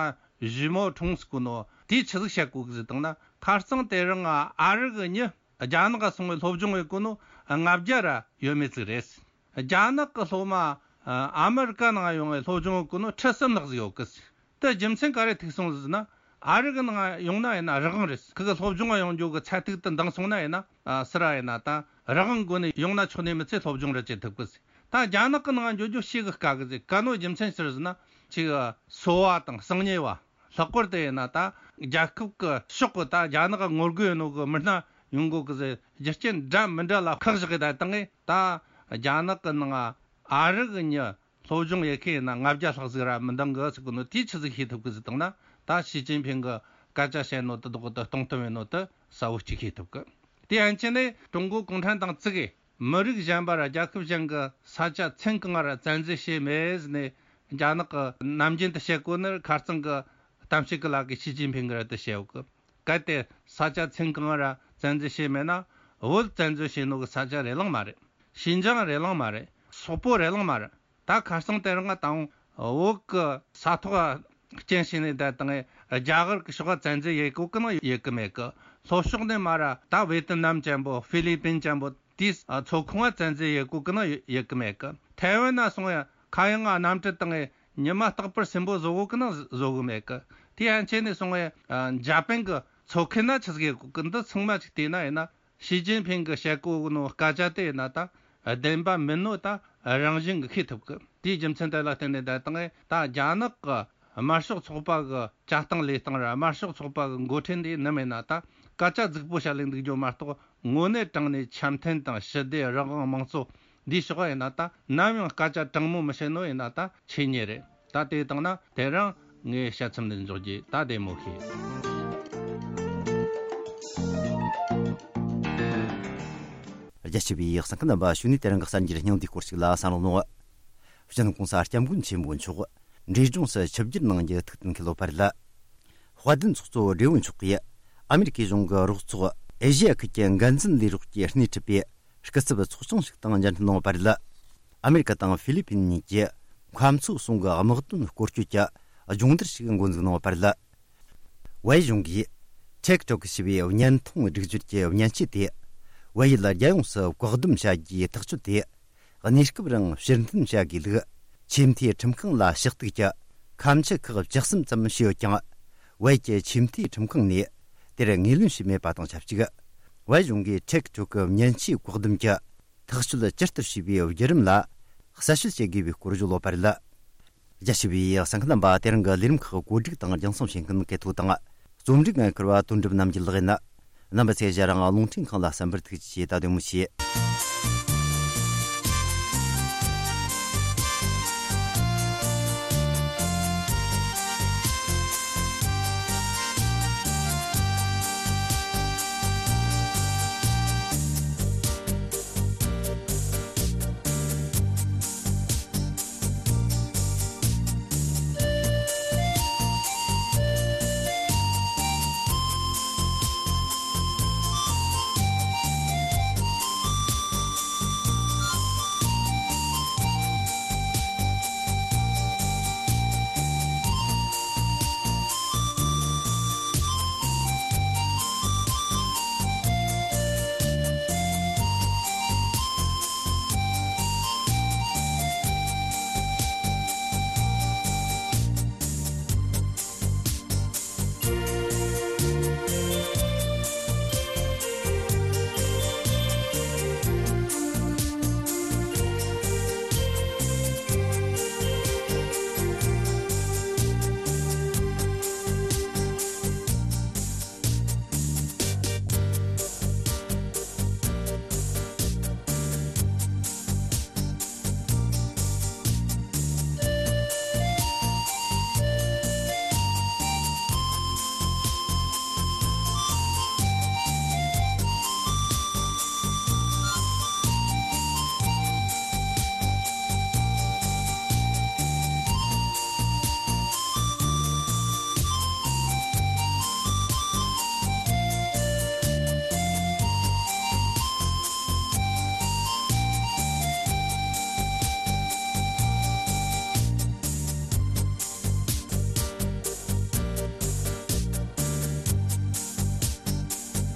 ཞི་མོ་ཁྲུང་ཟེར་གོ་ནོ་དེས་ཆི་ཟིག་བཤད་གོ་གི་ཟེར་བཏང་ན། ཁ་རྩང་དེ་རིང་ཨ་རི་གི་མྱི་རྒྱ་ནག་ག་སོང་བའི་སློབ་སྦྱོང་ཡོད་གོ་ནོ་ལྔ་བརྒྱ་ར་ཡོད་མེད་ཟིག་རེད། རྒྱ་ནག་གི་སློབ་མ་ཨ་ཨ་མི་རི་ཀ་ནང་ཡོང་བའི་སློབ་སྦྱོང་གི་ནོ་ཁྲི་གསུམ་ལྷག་ཟིག་ཡོད་གི། དེ་རྒྱུ་མཚན་ག་རེ་ཐུག་སོང་ཟེར་ན། ཨ་རི་གི་ནང་ཡོང་ན་ཡིན་ན་རང་དབང་རེད། ཁི་གི་སློབ་སྦྱོང་ཡོང་རྒྱུ་གི་ཚད་ཐིག་དེ་འདང་སོང་ན་ཡིན་ན་ཨ་སི་ར་ཡིན་ན་ད་རང་དབང་སྒོ་ནས་ཡོང་ན་ཆོག་ནི་མི་ཚེ་སློབ་སྦྱོང་རེ་བྱེད་ཐུབ་གི་ཟེར། ད་རྒྱ་ནག་གི་ནང་འགྱོ་རྒྱུ་ཤི་གི་དཀའ་གི་ཟེར། ག་ནོ་རྒྱུ་མཚན་ཕྱིར་ཟེར་ན་ཅིག་གསོ་བ་དང་གསང་ཉེ་བ། ལྷག་པར་དུ་ཡིན་ན་ད་རྒྱལ་ཁབ་ཀྱི་ཕྱོགས་ཀྱི་ད་རྒྱ་ནག་གི་ངོ་རྒོལ་ཡིན་ནོ་གི་མི་སྣ་ཡོང་གོ་གི་ཟེར། རྒྱུ་རྐྱེན་འདྲ་མི་འདྲ་ལ་ཁག་བཞག་གི་ད་བཏང་ངེ་ད་རྒྱ་ནག་གི་ནང་ཨ་རི་གི་མྱི་སློབ་སྦྱོང་ཡེ་ཁེ་ཡིན་ན་ལྔ་བརྒྱ་ལྷག་ཟིག་ར་མི་འདང་གི་ཟེར་གི་ནོ་དེ་ཆི་ཟིག་ཤེས་ཐུབ་གི་ཟེར་བཏང་ན། ད་ཞི་ཅིན་ཕིང་གི་སྐད་ཆ་བཤད་ནོ་དེ་དག་དེ་སྟོང་གཏམ་ཡིན་ནོ་དེ་གསལ་བོ་གཅིག་ཤེས་ཐུབ་གི། དེ་ཡན་ཆད་ནས་ཀྲུང་གོ་གུང་ཁྲན་ཏང་བཙུགས་གི་མི་རིགས་གཞན་པ་ར་རྒྱལ་ཁབ་གཞན་གྱི་ས་ཆ་ཚན་གང་ར་བཙན་འཛུལ་བྱས་མེད་ཟེར་ནས་རྒྱ་ནག་གི་ནམ་རྒྱུན་དུ་བཤད་གོ་ནི་ཁ་རྩང་གི་གཏམ་བཤད་གི་ལ་གི་ཞི་ཅིན་ཕིང་གི་ར་དུ་བཤད་གོ་གི། གལ་ཏེ་ས་ཆ་ཚན་གང་ར་བཙན་འཛུལ་བྱས་མེད་ན་བོད་བཙན་འཛུལ་བྱས་ནོ་གི་ས་ཆ་རེ་ལང་མ་རེད། ཤིན་ཅང་རེ་ལང་མ་རེད། སོག་པོ་རེ་ལང་མ་རེད། ད་ཁ་སང་དེ་རིང་ང་དང་བོད་གི་ས་ཐོག་རྐྱེན་བྱས་ནས་བསྡད་དང་རྒྱ་གར་གི་ཕྱོགས་བཙན་འཛུལ་ཡེ་གོ་གི་ནང་ཡེ་གི་མེད་གི། ལྷོ་ཕྱོགས་ནས་མ་ར་ད་ཝེ་ཏི་ནམ་ཅན་པོ་ཧྥི་ལི་པིན་ཅན་པོ་དེའི་མཚོ་ཁོངས་བཙན་འཛུལ་ཡེ་གོ་གི་ནང་ཡེ་གི་མེད་གི། ཐའེ་ཝན་ན་སོང་ཡ་ཁ་ཡང་ང་གནམ་གྲུ་དང་ཉི་མ་རྟག་པར་སིམ་པོ་བཟོ་གོ་གི་ནང་བཟོ་གི་མེད་གི། དེ་ཡན་ཆད་ནས་སོང་ཡ་འཇར་པན་གི་མཚོ་ཁུལ་ན་ཆི་ཟིག་ཡེ་གོ་གི། འདི་ཚང་མ་ཅིག་བལྟས་ན་ཡིན་ན། ཞི་ཅིན་ཕིང་གི་བཤད་གོ་ནོ་སྐད་ཆ་དེ་ཡིན་ན་ད་བདེན་པ་མིན་ནོ་ད་རང་བཞིན་གྱི་ཤེས་ཐུབ་གི། དེའི་རྒྱུ་མཚན་དེ་ལ་བརྟེན་ནས་ད་དང་ད་རྒྱ་ནག་གི་དམར་ཤོག་ཚོགས་པ་གི་བྱ་སྟངས་ལས་སྟངས་ར་དམར་ཤོག་ཚོགས་པ་གི་འགོ་ཁྲིད་འདི་ནམ་ཡིན་ན་ད་སྐད་ཆ་རྫིག་པོ་བཤད་ལས་འདུག་རྒྱུ་མ་གཏོགས་དངོས་གནས་དྲང་ནས་འཆམ་མཐུན་དང་ཞི་བདེ་རང་དབང་དམངས་གཙོ་འདིའི་ཕྱོགས་ཡིན་ན་ད་ནམ་ཡང་སྐད་ཆ་དྲང་མོ་མི་བཤད་ནོ་ཡིན་ན་ད་ཆོས་ཉིད་རེད། ད་དེ་བཏང་ན་དེ་རིང་ངའི་དཔྱད་རྩོམ་འདི་འཇོག་རྒྱུ་ད་བདེ་མོ་ཤེས། རྒྱ་ཆེ་བའི་གསན་མཁན་རྣམ་པ་ཞུ་ནས་དེ་རིང་གི་གསར་འགྱུར་སྙིང་བསྡུས་སྐོར་ཞིག་ལ་གསན་རོགས་གནང་། སྤྱི་ནོར་༸གོང་ས་༸སྐྱབས་མགོན་ཆེན་པོ་མཆོག་འབྲས་ལྗོངས་སུ་ཆིབས་བསྒྱུར་གནང་རྒྱུ་ཐུགས་གཏན་འཁེལ་ཡོད་པ་རེད། དཔལ་ལྡན་ཚོགས་གཙོ་བགྲེས་པོ་མཆོག་གིས་ཨ་མེ་རི་ཁའི་གཞུང་གི་རོགས་ཚོགས་ཨེ་ཤི་ཡ་ཁུལ་གྱི་འགན་འཛིན་ལས་རོགས་ཀྱིས་སྣེ་ཁྲིད་པའི་སྐུ་ཚབ་ཚོགས་ཆུང་ཞིག་དང་མཇལ་འཕྲད་གནང་བ་རེད། ཨ་མེ་རི་ཀ་དང་ཧྥི་ལི་པིན་གཉིས་ཀྱིས་ཁམས་མཚོ་གསུམ་གྱི་དམག་དོན་སྐོར་སྐྱོད་ཀྱི་སྦྱོང་བརྡར་ཞིག་འགོ་འཛུགས་གནང་བ་རེད། བལ་ཡུལ་གཞུང་གིས་ཊིག་ཊོག་ཞེས་པའི་བརྙན་ཐུང་སྒྲིག་སྦྱོར་གྱི་མཉེན་ཆས་དེ་བལ་ཡུལ་རྒྱལ་ཡོངས་སུ་བཀག་སྡོམ་བྱ་རྒྱུའི་ཐག་གཅོད་དེ། གནས་སྐབས་རིང་ཕྱིར་འཐེན་བྱ་དགོས་ལུགས་ཆེས་མཐོའི་ཁྲིམས་ཁང་ལ་ཕྱག་བཏུག་གི་ཁ་མཆུ་ཁག་བཅུ་གསུམ་ཙམ་ཞུས་ཡོད་ཀྱང་། བལ་ཡུལ་གྱི་ཆེས་མཐོའི་ཁྲིམས་ཁང་ནས་དེར་ངོས་ལེན་བྱས་མེད་པ་དང་ཆབས་ཅིག་བལ་གཞུང་གིས་ཊིག་ཊོག་གི་མཉེན་ཆས་བཀག་སྡོམ་གྱི་ཐག་གཅོད་ཇི་ལྟར་བྱས་པའི་བརྒྱུད་རིམ་ལ་གསལ་བཤད་བྱེད་དགོས་པའི་སྐོར་བརྗོད་ཡོད་པ་རེད། རྒྱ་ཆེ་བའི་གསན་མཁན་རྣམ་པ་དེ་རིང་གི་ལས་རིམ་ཁག་གོ་སྒྲིག་དང་རྒྱང་སྲིང་བྱེད་མཁན་གལ་ཐོ་དང་རྩོམ་སྒྲིག་འགན་འཁུར་བ་དོན་གྲུབ་རྣམ་རྒྱལ་ལགས་ཡིན། རྣམ་པ་ཚོས་ཞལ་རང་རླུང་འཕྲིན་ཁང་ལ་གསན་པར་ཐུགས་རྗེ་ཆེ། ད་དེ་མོ་བྱེད།